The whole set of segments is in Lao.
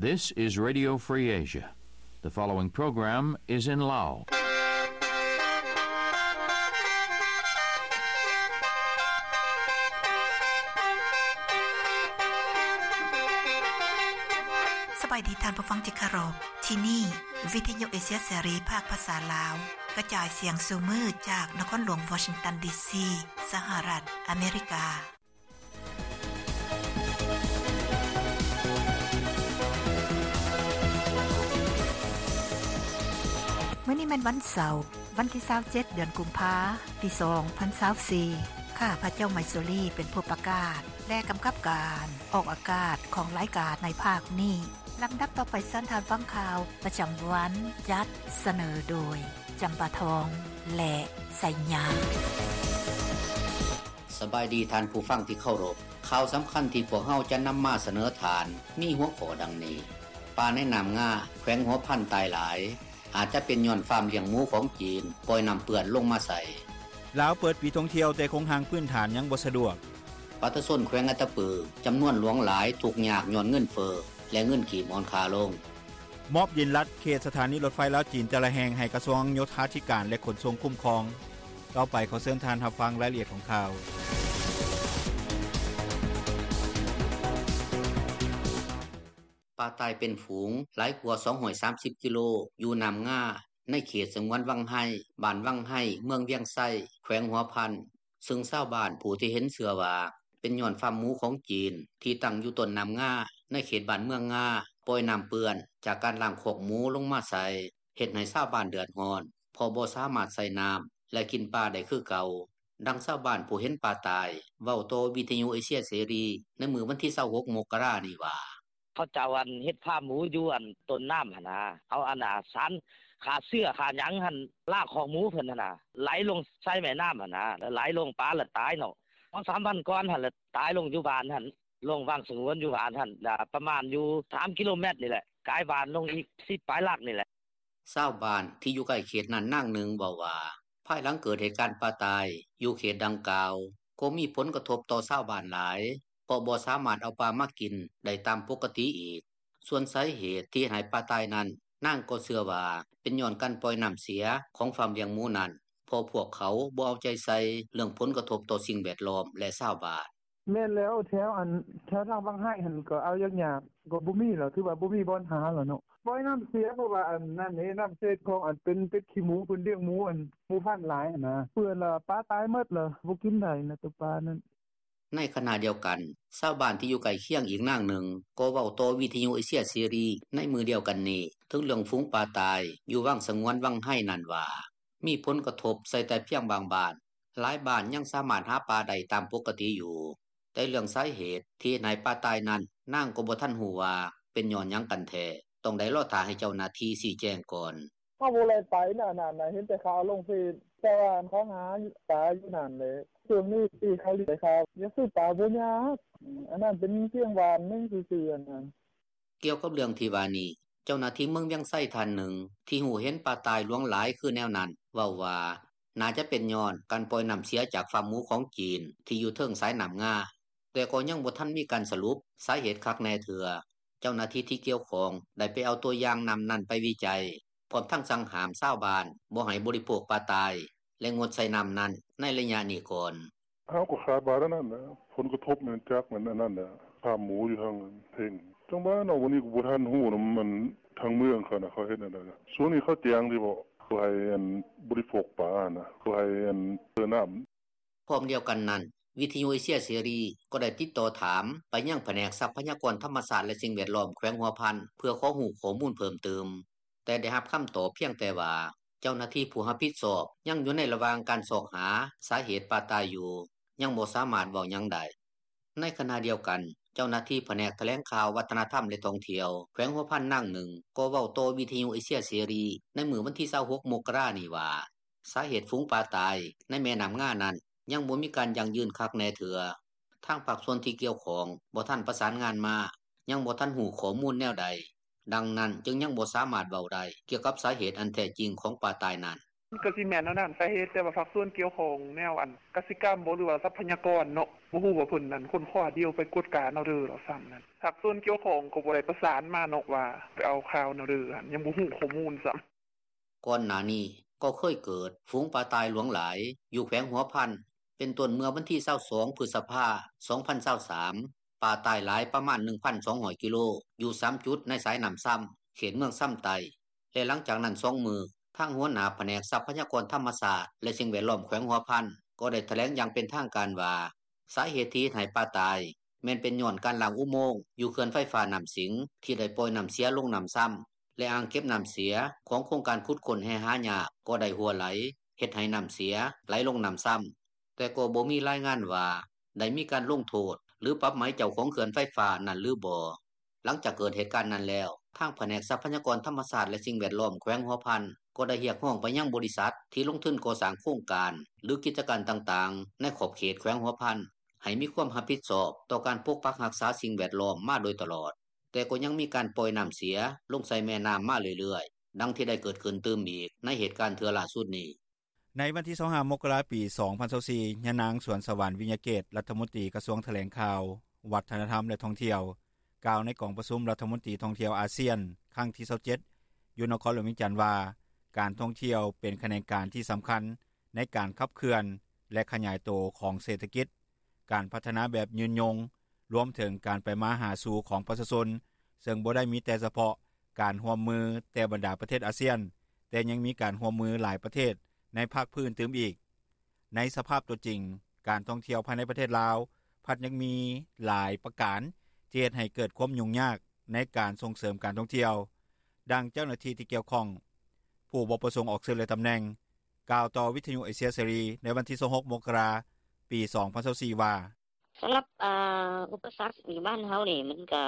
This is Radio Free Asia. The following program is in Lao. ສະບາຍດີທ່ານຜູ້ຟັງທີ່ເຄົາລົບ. ທີ່ນີ້ ວິທະຍຸເອເຊຍເສລີ ພາກພາສາລາວ ກະຈາຍສຽງສູ່ມື້ຈາກນະຄອນຫຼວງວໍຊິງຕັນ ດີຊີ ສະຫະລັດອາເມລິກາ. ມື້ນີ້ແມ່ນວັນເສົາ, ວັນທີຊາວເຈັດ ເດືອນກຸມພາ ປີສອງພັນຊາວສີ່. ຂ້າພະເຈົ້າໄມຊູລີ ເປັນຜູ້ປະກາດ ແລະ ກຳກັບການອອກອາກາດຂອງລາຍການໃນພາກນີ້. ລຳດັບຕໍ່ໄປເຊີນທ່ານຟັງຂ່າວປະຈຳວັນ ຈັດສະເໜີໂດຍ ຈຳປາທອງ ແລະ ໄຊຍາ. ສະບາຍດີທ່ານຜູ້ຟັງທີ່ເຄົາລົບ. ຂ່າວສຳຄັນທີ່ພວກເຮົາຈະນຳມາສະເໜີທ່ານ ມີຫົວຂໍ້ດັ່ງນີ້: ປາໃນນ້ຳງາ ແຂວງຫົວພັນຕາຍຫຼາຍ ອາດຈະເປັນຍ້ອນຟາມລ້ຽງໝູຂອງຈີນປ່ອຍນ້ຳເປື້ອນລົງມາໃສ່. ລາວເປີດປີທ່ອງທ່ຽວ ແຕ່ໂຄງຮ່າງພື້ນຖານຍັງບໍ່ສະດວກ. ປະຊາຊົນແຂວງອັດຕະປື ຈຳນວນຫຼວງຫຼາຍທຸກຍາກຍ້ອນເງິນເຟີ້ ແລະ ເງິນກີບອ່ອນຄ່າລົງ. ມອບດິນລັດເຂດສະຖານີລົດໄຟລາວ-ຈີນແຕ່ລະແຫ່ງໃຫ້ກະຊວງໂຍທາທິການ ແລະ ຂົນສົ່ງຄຸ້ມຄອງ. ຕໍ່ໄປຂໍເຊີນທ່ານຮັບຟັງລາຍລະອຽດຂອງຂ່າວ. ປາຕາຍເປັນຝູງຫຼາຍກວ່າສອງຮ້ອຍສາມສິບກິໂລ ຢູ່ນ້ຳງາ ໃນເຂດສະຫງວນວັງໄຮ ບ້ານວັງໄຮ ເມືອງວຽງໄຊ ແຂວງຫົວພັນ, ເຊິ່ງຊາວບ້ານຜູ້ທີ່ເຫັນເຊື່ອວ່າ ເປັນຍ້ອນຟາມໝູຂອງຈີນ ທີ່ຕັ້ງຢູ່ຕົ້ນນ້ຳງາ ໃນເຂດບ້ານເມືອງງາ ປ່ອຍນ້ຳເປື້ອນຈາກການລ້າງຄອກໝູລົງມາໃສ່ ເຮັດໃຫ້ຊາວບ້ານເດືອດຮ້ອນ ເພາະບໍ່ສາມາດໃຊ້ນ້ຳ ແລະ ກິນປາໄດ້ຄືເກົ່າ. ດັ່ງຊາວບ້ານຜູ້ເຫັນປາຕາຍ ເວົ້າຕໍ່ວິທະຍຸເອເຊຍເສລີ ໃນມື້ວັນທີຊາວຫົກ ມົກກະລານີ້ວ່າ: ເຂົາເຈົ້າ ອັນ ເຮັດຟາມໝູຢູ່ ອັນ ຕົ້ນນ້ຳຫັ້ນນະ ເອົາ ອັນ ສານຂ້າເຊື້ອຂ້າຫຍັງຫັ້ນ ລ້າງຄອກໝູເພິ່ນຫັ້ນນະ ໄຫຼລົງໃສ່ແມ່ນ້ຳຫັ້ນນະ ແລ້ວໄຫຼລົງ ປາລະຕາຍເນາະ. ສອງສາມວັນກ່ອນຫັ້ນລະ ຕາຍລົງຢູ່ບ້ານຫັ້ນ ລົງວັງສະຫງວນຢູ່ບ້ານຫັ້ນ ລະປະມານຢູ່ສາມກິໂລແມັດນີ້ແຫຼະ ກາຍບ້ານລົງອີກສິບປາຍຫຼັກນີ້ແຫຼະ. ຊາວບ້ານທີ່ຢູ່ໃກ້ເຂດນັ້ນນາງໜຶ່ງເວົ້າວ່າ ພາຍຫຼັງເກີດເຫດການປາຕາຍຢູ່ເຂດດັ່ງກ່າວ ກໍມີຜົນກະທົບຕໍ່ຊາວບ້ານຫຼາຍ ເພາະບໍ່ສາມາດເອົາປາມາກິນໄດ້ຕາມປົກກະຕິອີກ. ສ່ວນສາເຫດທີ່ເຮັດໃຫ້ປາຕາຍນັ້ນ ນາງກໍເຊື່ອວ່າເປັນຍ້ອນການປ່ອຍນ້ຳເສຍຂອງຟາມລ້ຽງໝູນັ້ນ ເພາະພວກເຂົາບໍ່ເອົາໃຈໃສ່ເລື່ອງຜົນກະທົບຕໍ່ສິ່ງແວດລ້ອມ ແລະ ຊາວບ້ານ. ແມ່ນແລ້ວ ແຖວ ອັນ ແຖວທາງວັງໄຮຫັ້ນກໍເອົາຍາກໆ ກໍບໍ່ມີແລ້ວ ຖືວ່າບໍ່ມີບ່ອນຫາແລ້ວເນາະ ປ່ອຍນ້ຳເສຍ ເພາະວ່າ ອັນ ນັ້ນເດ້ ນ້ຳເສຍຂອງ ອັນ ເປັນ ເປັດຂີ້ໝູ ເພິ່ນລ້ຽງໝູ ອັນ ໝູພັນຫຼາຍຫັ້ນນະ ເປື້ອນລະ ປາຕາຍໝົດລະ ບໍ່ກິນໄດ້ນະ ໂຕປານັ້ນ. ໃນຂະນະດຽວກັນ ຊາວບ້ານທີ່ຢູ່ໃກ້ຄຽງອີກນາງໜຶ່ງ ກໍເວົ້າຕໍ່ວິທະຍຸເອເຊຍເສລີໃນມື້ດຽວກັນນີ້ ເຖິງເລື່ອງຝູງປາຕາຍຢູ່ວັງສະຫງວນວັງໄຮນັ້ນວ່າ ມີຜົນກະທົບໃສ່ແຕ່ພຽງບາງບ້ານ, ຫຼາຍບ້ານຍັງສາມາດຫາປາໄດ້ຕາມປົກກະຕິຢູ່. ແຕ່ເລື່ອງສາເຫດທີ່ເຮັດໃຫ້ປາຕາຍນັ້ນ ນາງກໍບໍ່ທັນຮູ້ວ່າເປັນຍ້ອນຫຍັງກັນແທ້, ຕ້ອງໄດ້ລໍຖ້າໃຫ້ເຈົ້າໜ້າທີ່ຊີ້ແຈງກ່ອນ. ເຮົາບໍ່ໄດ້ໄປນະ ອັນນັ້ນນະ ເຫັນແຕ່ຂ່າວລົງເຟສ ແຕ່ວ່າເຂົາຫາປາຢູ່ນັ້ນແຫຼະ. ຊ່ວງນີ້ທີ່ເຂົາເລີຍໄດ້ຂ່າວ ຢາກຊື້ປາບໍ່ຍາກ ອັນນັ້ນເປັນພຽງບ້ານໜຶ່ງຊື່ໆ ອັນນັ້ນ. ກ່ຽວກັບເລື່ອງທີ່ວ່ານີ້ ເຈົ້າໜ້າທີ່ເມືອງວຽງໄຊທ່ານໜຶ່ງ ທີ່ຮູ້ເຫັນປາຕາຍຫຼວງຫຼາຍຄືແນວນັ້ນ ເວົ້າວ່າ ໜ້າຈະເປັນຍ້ອນການປ່ອຍນ້ຳເສຍຈາກຟາມໝູຂອງຈີນ ທີ່ຢູ່ເທິງສາຍນ້ຳງາ, ແຕ່ກໍຍັງບໍ່ທັນມີການສະຫຼຸບສາເຫດຄັກແນ່ເທື່ອ. ເຈົ້າໜ້າທີ່ທີ່ກ່ຽວຂ້ອງໄດ້ໄປເອົາຕົວຢ່າງນ້ຳນັ້ນໄປວິໄຈ ພ້ອມທັງສັ່ງຫ້າມຊາວບ້ານບໍ່ໃຫ້ບໍລິໂພກປາຕາຍ ແລະ ງົດໃຊ້ນ້ຳນັ້ນໃນໄລຍະນີ້ກ່ອນ. ເຮົາກໍຄາດວ່າແນວນັ້ນແຫຼະ ຜົນກະທົບແມ່ນຈາກແມ່ນອັນນັ້ນແຫຼະ ຟາມໝູຢູ່ທາງເທິງ. ຈັ່ງວ່າເນາະ ວັນນີ້ກໍບໍ່ທັນຮູ້ນຳ ອັນ ທາງເມືອງເຂົານະ ເຂົາເຮັດແນວໃດ. ຊ່ວງນີ້ເຂົາແຈ້ງຕິເບາະ ບໍ່ໃຫ້ ອັນ ບໍລິໂພກປານະ ບໍ່ໃຫ້ ອັນ ເຕີນ້ຳ. ພ້ອມດຽວກັນນັ້ນ ວິທະຍຸເອເຊຍເສລີກໍໄດ້ຕິດຕໍ່ຖາມໄປຍັງພະແນກຊັບພະຍາກອນທຳມະຊາດ ແລະ ສິ່ງແວດລ້ອມແຂວງຫົວພັນ ເພື່ອຂໍຮູ້ຂໍ້ມູນເພີ່ມຕື່ມ, ແຕ່ໄດ້ຮັບຄຳຕອບພຽງແຕ່ວ່າ ເຈົ້າໜ້າທີ່ຜູ້ຮັບຜິດຊອບຍັງຢູ່ໃນລະຫວ່າງການຊອກຫາສາເຫດປາຕາຍຢູ່, ຍັງບໍ່ສາມາດເວົ້າຫຍັງໄດ້. ໃນຂະນະດຽວກັນ ເຈົ້າໜ້າທີ່ພະແນກຖະແຫຼງຂ່າວ, ວັດທະນະທຳ ແລະ ທ່ອງທ່ຽວ ແຂວງຫົວພັນນາງໜຶ່ງ ກໍເວົ້າຕໍ່ວິທະຍຸເອເຊຍເສລີໃນມື້ວັນທີຊາວຫົກ ມົກກະລານີ້ວ່າ ສາເຫດຝູງປາຕາຍໃນແມ່ນ້ຳງານັ້ນ ຍັງບໍ່ມີການຢັ້ງຢືນຄັກແນ່ເທື່ອ. ທາງພາກສ່ວນທີ່ກ່ຽວຂ້ອງບໍ່ທັນປະສານງານມາ, ຍັງບໍ່ທັນຮູ້ຂໍ້ມູນແນວໃດ, ດັ່ງນັ້ນຈຶ່ງຍັງບໍ່ສາມາດເວົ້າໄດ້ກ່ຽວກັບສາເຫດອັນແທ້ຈິງຂອງປາຕາຍນັ້ນ. ມັນກໍຊິແມ່ນແນວນັ້ນ ສາເຫດ ແຕ່ວ່າພາກສ່ວນກ່ຽວຂ້ອງ ແນວອັນກະສິກຳບໍ ຫຼືວ່າຊັບພະຍາກອນເນາະ ບໍ່ຮູ້ວ່າເພິ່ນນັ້ນຄົ້ນຄວ້າດ່ຽວ ໄປກວດການເອົາເດີ້ ວ່າຊັ້ນນັ້ນ. ພາກສ່ວນກ່ຽວຂ້ອງກໍບໍ່ໄດ້ປະສານມາເນາະ ວ່າໄປເອົາຂ່າວແນວເດີ້ ຍັງບໍ່ຮູ້ຂໍ້ມູນຊ້ຳ. ກ່ອນໜ້ານີ້ກໍເຄີຍເກີດຝູງປາຕ່າຍຫຼວງຫຼາຍຢູ່ແຂວງຫົວພັນ ເປັນຕົ້ນເມື່ອວັນທີຊາວສອງ ພຶດສະພາ ສອງພັນຊາວສາມ ປາຕ່າຍຫຼາຍປະມານ ໜຶ່ງພັນສອງຮ້ອຍກິໂລ ຢູ່ສາມຈຸດໃນສາຍນ້ຳຊຳ ເຂດເມືອງຊຳໃຕ້ ແລະຫຼັງຈາກນັ້ນສອງມື້ ທາງຫົວໜ້າພະແນກຊັບພະຍາກອນທຳມະຊາດ ແລະສິ່ງແວດລ້ອມແຂວງຫົວພັນ ກໍໄດ້ຖະແຫຼງຢ່າງເປັນທາງການວ່າ ສາເຫດທີ່ເຮັດໃຫ້ປາຕາຍ ແມ່ນເປັນຍ້ອນການລ້າງອຸໂມງຢູ່ເຂື່ອນໄຟຟ້ານ້ຳສິງ ທີ່ໄດ້ປ່ອຍນ້ຳເສຍລົງນ້ຳຊຳ ແລະອ່າງເກັບນ້ຳເສຍຂອງໂຄງການຂຸດຄົ້ນແຮ່ຫາຍາກກໍໄດ້ຮົ່ວໄຫຼ ເຮັດໃຫ້ນ້ຳເສຍໄຫຼລົງນ້ຳຊຳ ແຕ່ກໍບໍ່ມີລາຍງານວ່າໄດ້ມີການລົງໂທດ ຫຼື ປັບໃໝເຈົ້າຂອງເຂື່ອນໄຟຟ້ານັ້ນຫຼືບໍ່. ຫຼັງຈາກເກີດເຫດການນັ້ນແລ້ວ ທາງພະແນກຊັບພະຍາກອນທຳມະຊາດ ແລະສິ່ງແວດລ້ອມແຂວງຫົວພັນ ກໍໄດ້ຮຽກຮ້ອງໄປຍັງບໍລິສັດທີ່ລົງທຶນກໍ່ສ້າງໂຄງການ ຫຼື ກິດຈະການຕ່າງໆ ໃນຂອບເຂດແຂວງຫົວພັນ ໃຫ້ມີຄວາມຮັບຜິດຊອບຕໍ່ການປົກປັກຮັກສາສິ່ງແວດລ້ອມມາໂດຍຕະຫຼອດ, ແຕ່ກໍຍັງມີການປ່ອຍນ້ຳເສຍລົງໃສ່ແມ່ນ້ຳມາເລື້ອຍໆ ດັ່ງທີ່ໄດ້ເກີດຂຶ້ນຕື່ມອີກໃນເຫດການເທື່ອລ່າສຸດນີ້. ໃນວັນທີຊາວຫ້າ ມົກກະລາ ປີສອງພັນຊາວສີ່ ຍານາງ ສວນສະຫວັນ ວິຍະເກດ ລັດຖະມົນຕີກະຊວງຖະແຫຼງຂ່າວ, ວັດທະນະທຳ ແລະທ່ອງທ່ຽວ ກ່າວໃນກອງປະຊຸມລັດຖະມົນຕີທ່ອງທ່ຽວອາຊຽນ ຄັ້ງທີຊາວເຈັດ ຢູ່ນະຄອນຫຼວງວຽງຈັນວ່າ ການທ່ອງທ່ຽວເປັນຂະແໜງການທີ່ສຳຄັນໃນການຂັບເຄື່ອນ ແລະຂະຫຍາຍໂຕຂອງເສດຖະກິດ, ການພັດທະນາແບບຍືນຍົງ, ລວມເຖິງການໄປມາຫາສູ່ຂອງປະຊາຊົນ ເຊິ່ງບໍ່ໄດ້ມີແຕ່ສະເພາະການຮ່ວມມືແຕ່ບັນດາປະເທດອາຊຽນ, ແຕ່ຍັງມີການຮ່ວມມືຫຼາຍປະເທດໃນພາກພື້ນຕື່ມອີກ. ໃນສະພາບຕົວຈິງ, ການທ່ອງທ່ຽວພາຍໃນປະເທດລາວ ພັດຍັງມີຫຼາຍປະການທີ່ເຮັດໃຫ້ເກີດຄວາມຫຍຸ້ງຍາກໃນການສົ່ງເສີມການທ່ອງທ່ຽວ, ດັ່ງເຈົ້າໜ້າທີ່ທີ່ກ່ຽວຂ້ອງ ຜູ້ບໍ່ປະສົງອອກຊື່ ແລະ ຕຳແໜ່ງ ກ່າວຕໍ່ວິທະຍຸເອເຊຍເສລີໃນວັນທີຊາວຫົກ ມົກກະລາ ປີສອງພັນຊາວສີ່ ວ່າ: ສຳລັບ ອາ ອຸປະສັກຢູ່ບ້ານເຮົານີ້ ມັນກະ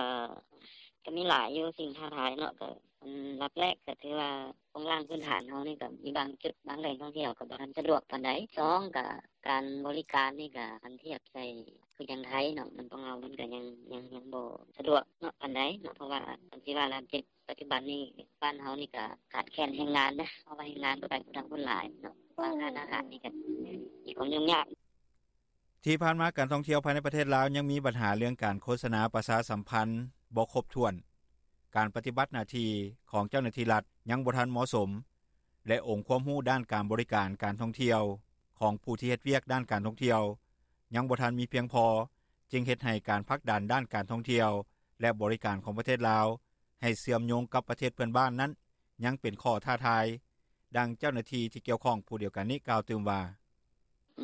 ກະມີຫຼາຍຢູ່ສິ່ງທ້າທາຍເນາະ. ກະອັນດັບແລກກະຖືວ່າໂຄງລ່າງພື້ນຖານເຮົານີ້ກະມີບາງຈຸດບາງແຫຼ່ງທ່ອງທ່ຽວກະບໍ່ທັນສະດວກປານໃດ. ສອງກະການບໍລິການນີ້ກະຄັນທຽບໃສ່ຄືຈັ່ງໄທເນາະ ມັນ ຂອງເຮົາມັນກະຍັງ ຍັງ ຍັງບໍ່ສະດວກເນາະປານໃດເນາະ ເພາະວ່າຄັນຊິວ່າແລ້ວ ປັດຈຸບັນນີ້ບ້ານເຮົານີ້ກະຂາດແຄນແຮງງານນະ ເພາະວ່າແຮງງານໄປຜູ້ທາງຄົນຫຼາຍເນາະ ບາງຮ້ານອາຫານນີ້ກະມີຄວາມຫຍຸ້ງຍາກ. ທີ່ຜ່ານມາການທ່ອງທ່ຽວພາຍໃນປະເທດລາວຍັງມີບັນຫາເລື່ອງການໂຄສະນາປະຊາສຳພັນບໍ່ຄົບຖ້ວນ, ການປະຕິບັດໜ້າທີ່ຂອງເຈົ້າໜ້າທີ່ລັດຍັງບໍ່ທັນເໝາະສົມ ແລະ ອົງຄວາມຮູ້ດ້ານການບໍລິການການທ່ອງທ່ຽວຂອງຜູ້ທີ່ເຮັດວຽກດ້ານການທ່ອງທ່ຽວຍັງບໍ່ທັນມີພຽງພໍ ຈຶ່ງເຮັດໃຫ້ການຜັກດັນດ້ານການທ່ອງທ່ຽວ ແລະ ບໍລິການຂອງປະເທດລາວໃຫ້ເຊື່ອມໂຍງກັບປະເທດເພື່ອນບ້ານນັ້ນ ຍັງເປັນຂໍ້ທ້າທາຍ. ດັ່ງເຈົ້າໜ້າທີ່ທີ່ກ່ຽວຂ້ອງຜູ້ດຽວກັນນີ້ກ່າວຕື່ມວ່າ: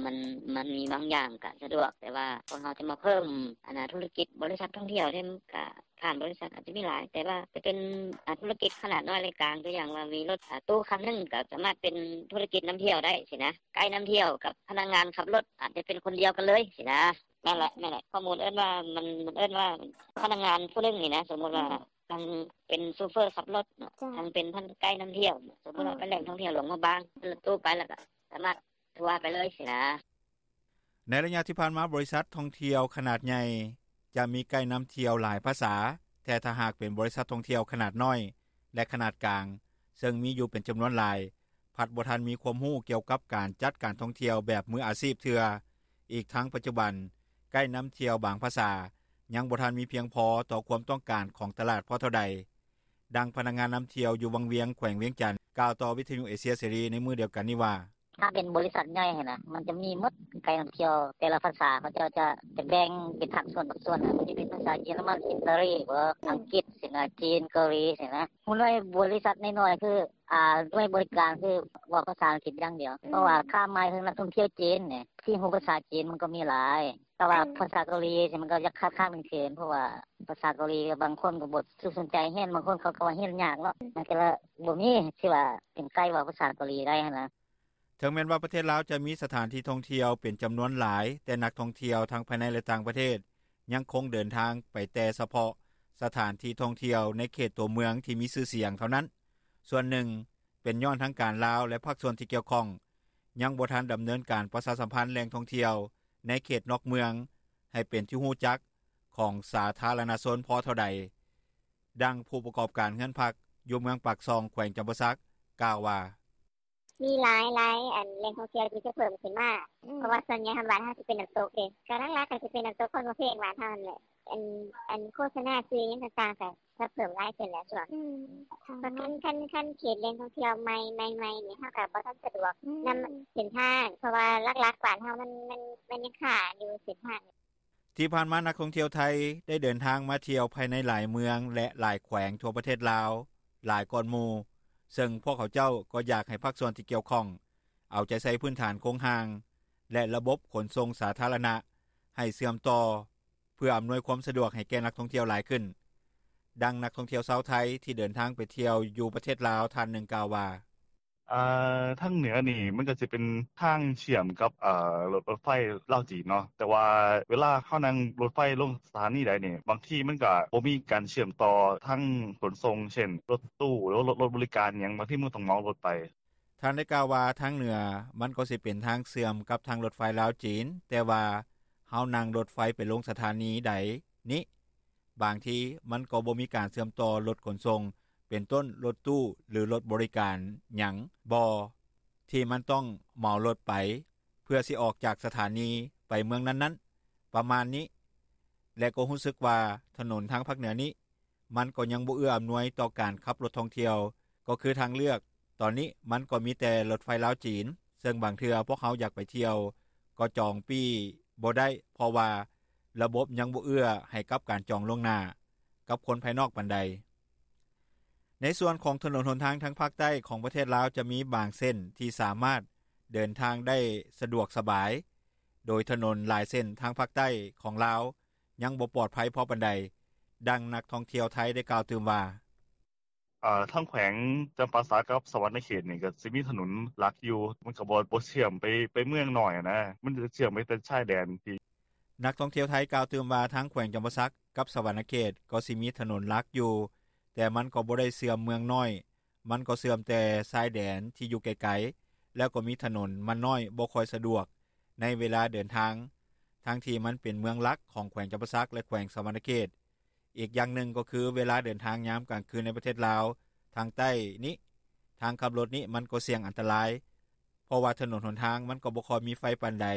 ມັນ ມັນມີບາງຢ່າງກະສະດວກ ແຕ່ວ່າພວກເຮົາຈະມາເພີ່ມ ອັນນ່າ ທຸລະກິດບໍລິສັດທ່ອງທ່ຽວນີ້ ກະຜ່ານບໍລິສັດອາດຈະມີຫຼາຍ ແຕ່ວ່າຈະເປັນ ອາ ທຸລະກິດຂະໜາດນ້ອຍ ແລະ ກາງ ຕົວຢ່າງວ່າມີລົດ ອາ ຕູ້ຄັນໜຶ່ງ ກະສາມາດເປັນທຸລະກິດນຳທ່ຽວໄດ້ຊີ້ນະ ໄກນຳທ່ຽວກັບພະນັກງານຂັບລົດອາດຈະເປັນຄົນດຽວກັນເລີຍຊີ້ນະ. ແມ່ນແຫຼະ ແມ່ນແຫຼະ ຂໍ້ມູນເອີ້ນວ່າ ມັນ ມັນເອີ້ນວ່າພະນັກງານຜູ້ໜຶ່ງນີ້ນະ ສົມມຸດວ່າ ທັງເປັນໂຊເຟີຂັບລົດເນາະ ທັງເປັນທັງໄກນຳທ່ຽວ ສົມມຸດວ່າໄປແຫຼ່ງທ່ອງທ່ຽວຫຼວງພະບາງ ລົດຕູ້ໄປແລ້ວກະສາມາດທົວໄປເລີຍຊີ້ນະ. ໃນໄລຍະທີ່ຜ່ານມາ ບໍລິສັດທ່ອງທ່ຽວຂະໜາດໃຫຍ່ຈະມີໄກນຳທ່ຽວຫຼາຍພາສາ, ແຕ່ຖ້າຫາກເປັນບໍລິສັດທ່ອງທ່ຽວຂະໜາດນ້ອຍ ແລະ ຂະໜາດກາງ ເຊິ່ງມີຢູ່ເປັນຈຳນວນຫຼາຍ ພັດບໍ່ທັນມີຄວາມຮູ້ກ່ຽວກັບການຈັດການທ່ອງທ່ຽວແບບມືອາຊີບເທື່ອ. ອີກທັງປັດຈຸບັນ ໄກນຳທ່ຽວບາງພາສາຍັງບໍ່ທັນມີພຽງພໍຕໍ່ຄວາມຕ້ອງການຂອງຕະຫຼາດພໍເທົ່າໃດ. ດັ່ງພະນັກງານນຳທ່ຽວຢູ່ວັງວຽງ ແຂວງວຽງຈັນ ກ່າວຕໍ່ວິທະຍຸເອເຊຍເສລີໃນມື້ດຽວກັນນີ້ວ່າ: ຖ້າເປັນບໍລິສັດໃຫຍ່ຫັ້ນນະ ມັນຈະມີໝົດ ໄກນຳທ່ຽວແຕ່ລະພາສາ ເຂົາເຈົ້າຈະ ຈະແບ່ງເປັນພາກສ່ວນ ພາກສ່ວນ ມັນຈະເປັນພາສາເຢຍລະມັນ ອິດຕາລີບໍ ອັງກິດຊີ້ນະ ຈີນ ເກົາຫຼີຊີ້ນະ. ຫົວໜ່ວຍບໍລິສັດນ້ອຍໆ ຄື ອາ ໜ່ວຍບໍລິການຄືເວົ້າພາສາອັງກິດຢ່າງດຽວ ເພາະວ່າຄາດໝາຍເຖິງນັກທ່ອງທ່ຽວຈີນນີ້ ທີ່ຮູ້ພາສາຈີນມັນກໍມີຫຼາຍ ແຕ່ວ່າພາສາເກົາຫຼີຊີ້ ມັນກໍຢາກຂາດໆເຂີນໆ ເພາະວ່າພາສາເກົາຫຼີບາງຄົນກໍບໍ່ສຸກສົນໃຈຮຽນ ບາງຄົນເຂົາກໍວ່າຮຽນຍາກເນາະ ມັນກໍເລີຍບໍ່ມີທີ່ວ່າເປັນໄກເວົ້າພາສາເກົາຫຼີໄດ້ຫັ້ນນະ. ເຖິງແມ່ນວ່າປະເທດລາວຈະມີສະຖານທີ່ທ່ອງທ່ຽວເປັນຈຳນວນຫຼາຍ ແຕ່ນັກທ່ອງທ່ຽວທັງພາຍໃນ ແລະ ຕ່າງປະເທດ ຍັງຄົງເດີນທາງໄປແຕ່ສະເພາະສະຖານທີ່ທ່ອງທ່ຽວໃນເຂດຕົວເມືອງທີ່ມີຊື່ສຽງເທົ່ານັ້ນ. ສ່ວນໜຶ່ງເປັນຍ້ອນທາງການລາວ ແລະ ພາກສ່ວນທີ່ກ່ຽວຂ້ອງ ຍັງບໍ່ທັນດຳເນີນການປະຊາສຳພັນແຫຼ່ງທ່ອງທ່ຽວໃນເຂດນອກເມືອງ ໃຫ້ເປັນທີ່ຮູ້ຈັກຂອງສາທາລະນະຊົນພໍເທົ່າໃດ. ດັ່ງຜູ້ປະກອບການເຮືອນພັກຢູ່ເມືອງປາກຊ່ອງ ແຂວງຈຳປາສັກ ກ່າວວ່າ: ມີຫຼາຍໆ ອັນແຫຼ່ງທ່ອງທ່ຽວທີ່ຈະເພີ່ມຂຶ້ນມາ ເພາະວ່າສ່ວນໃຫຍ່ບ້ານເຮົາຊິເປັນນ້ຳຕົກເດ້ ກໍຫຼັກໆກໍຊິເປັນນ້ຳຕົກຄົນຫົວເພັງບ້ານເຮົາຫັ້ນແຫຼະ ອັນອັນໂຄສະນາຊື່ຫຍັງຕ່າງໆກໍຈະເພີ່ມຫຼາຍຂຶ້ນແຫຼະຊ່ວງ ຄັນຄັນເຂດແຫຼ່ງທ່ອງທ່ຽວໃໝ່ໃໝ່ນີ້ເຮົາກໍບໍ່ທັນສະດວກນຳເສັ້ນທາງ ເພາະວ່າຫຼັກໆບ້ານເຮົາມັນມັນຍັງຄາຢູ່ເສັ້ນທາງ. ທີ່ຜ່ານມານັກທ່ອງທ່ຽວໄທໄດ້ເດີນທາງມາທ່ຽວພາຍໃນຫຼາຍເມືອງ ແລະຫຼາຍແຂວງທົ່ວປະເທດລາວຫຼາຍກ່ອນໝູ່ ເຊິ່ງພວກເຂົາເຈົ້າກໍຢາກໃຫ້ພາກສ່ວນທີ່ກ່ຽວຂ້ອງເອົາໃຈໃສ່ພື້ນຖານໂຄງຮ່າງ ແລະລະບົບຂົນສົ່ງສາທາລະນະໃຫ້ເຊື່ອມຕໍ່ ເພື່ອອຳນວຍຄວາມສະດວກໃຫ້ແກ່ນັກທ່ອງທ່ຽວຫຼາຍຂຶ້ນ. ດັ່ງນັກທ່ອງທ່ຽວຊາວໄທທີ່ເດີນທາງໄປທ່ຽວຢູ່ປະເທດລາວທ່ານໜຶ່ງກ່າວວ່າ: ເອີ ທາງເໜືອນີ້ມັນກໍຊິເປັນທາງເຊື່ອມກັບ ເອີ ລົດ ລົດໄຟລາວ-ຈີນເນາະ ແຕ່ວ່າເວລາເຮົານັ່ງລົດໄຟລົງສະຖານີໃດນີ້ ບາງທີມັນກໍບໍ່ມີການເຊື່ອມຕໍ່ທາງຂົນສົ່ງ ເຊັ່ນ ລົດຕູ້ ຫຼືວ່າລົດ ລົດບໍລິການຫຍັງ ບາງທີມັນຕ້ອງເໝົາລົດໄປ. ທ່ານໄດ້ກ່າວວ່າ ທາງເໜືອມັນກໍຊິເປັນທາງເຊື່ອມກັບທາງລົດໄຟລາວ-ຈີນ ແຕ່ວ່າເຮົານັ່ງລົດໄຟໄປລົງສະຖານີໃດນີ້ ບາງທີມັນກໍບໍ່ມີການເຊື່ອມຕໍ່ລົດຂົນສົ່ງ ເປັນຕົ້ນລົດຕູ້ ຫຼືລົດບໍລິການຫຍັງບໍ່ ທີ່ມັນຕ້ອງເໝົາລົດໄປ ເພື່ອຊິອອກຈາກສະຖານີໄປເມືອງນັ້ນໆ ປະມານນີ້ ແລະກໍຮູ້ສຶກວ່າຖະໜົນທາງພາກເໜືອນີ້ ມັນກໍຍັງບໍ່ເອື້ອອຳນວຍຕໍ່ການຂັບລົດທ່ອງທ່ຽວ ກໍຄືທາງເລືອກຕອນນີ້ມັນກໍມີແຕ່ລົດໄຟລາວ-ຈີນ ເຊິ່ງບາງເທື່ອພວກເຮົາຢາກໄປທ່ຽວກໍຈອງປີ້ບໍ່ໄດ້ ເພາະວ່າລະບົບຍັງບໍ່ເອື້ອໃຫ້ກັບການຈອງລ່ວງໜ້າກັບຄົນພາຍນອກປານໃດ. ໃນສ່ວນຂອງຖະໜົນຫົນທາງທາງພາກໃຕ້ຂອງປະເທດລາວ ຈະມີບາງເສັ້ນທີ່ສາມາດເດີນທາງໄດ້ສະດວກສະບາຍ ໂດຍຖະໜົນຫຼາຍເສັ້ນທາງພາກໃຕ້ຂອງລາວ ຍັງບໍ່ປອດໄພພໍປານໃດ. ດັ່ງນັກທ່ອງທ່ຽວໄທໄດ້ກ່າວຕື່ມວ່າ: ເອີ ທາງແຂວງຈຳປາສັກກັບສະຫວັນນະເຂດນີ້ ກໍຊິມີຖະໜົນຫຼັກຢູ່ ມັນກໍບໍ່ ບໍ່ເຊື່ອມໄປ ໄປເມືອງນ້ອຍຫັ້ນນະ ມັນຈະເຊື່ອມໄປແຕ່ຊາຍແດນທີ່. ນັກທ່ອງທ່ຽວໄທກ່າວຕື່ມວ່າ ທາງແຂວງຈຳປາສັກກັບສະຫວັນນະເຂດກໍຊິມີຖະໜົນຫຼັກຢູ່ ແຕ່ມັນກໍບໍ່ໄດ້ເຊື່ອມເມືອງນ້ອຍ ມັນກໍເຊື່ອມແຕ່ຊາຍແດນທີ່ຢູ່ໄກໆ ແລ້ວກໍມີຖະໜົນມັນນ້ອຍ ບໍ່ຄ່ອຍສະດວກໃນເວລາເດີນທາງ ທັງທີ່ມັນເປັນເມືອງຫຼັກຂອງແຂວງຈຳປາສັກ ແລະແຂວງສະຫວັນນະເຂດ. ອີກຢ່າງໜຶ່ງກໍຄືເວລາເດີນທາງຍາມກາງຄືນໃນປະເທດລາວທາງໃຕ້ນີ້ ທາງຂັບລົດນີ້ມັນກໍສ່ຽງອັນຕະລາຍ ເພາະວ່າຖະໜົນຫົນທາງມັນກໍບໍ່ຄ່ອຍມີໄຟປານໃດ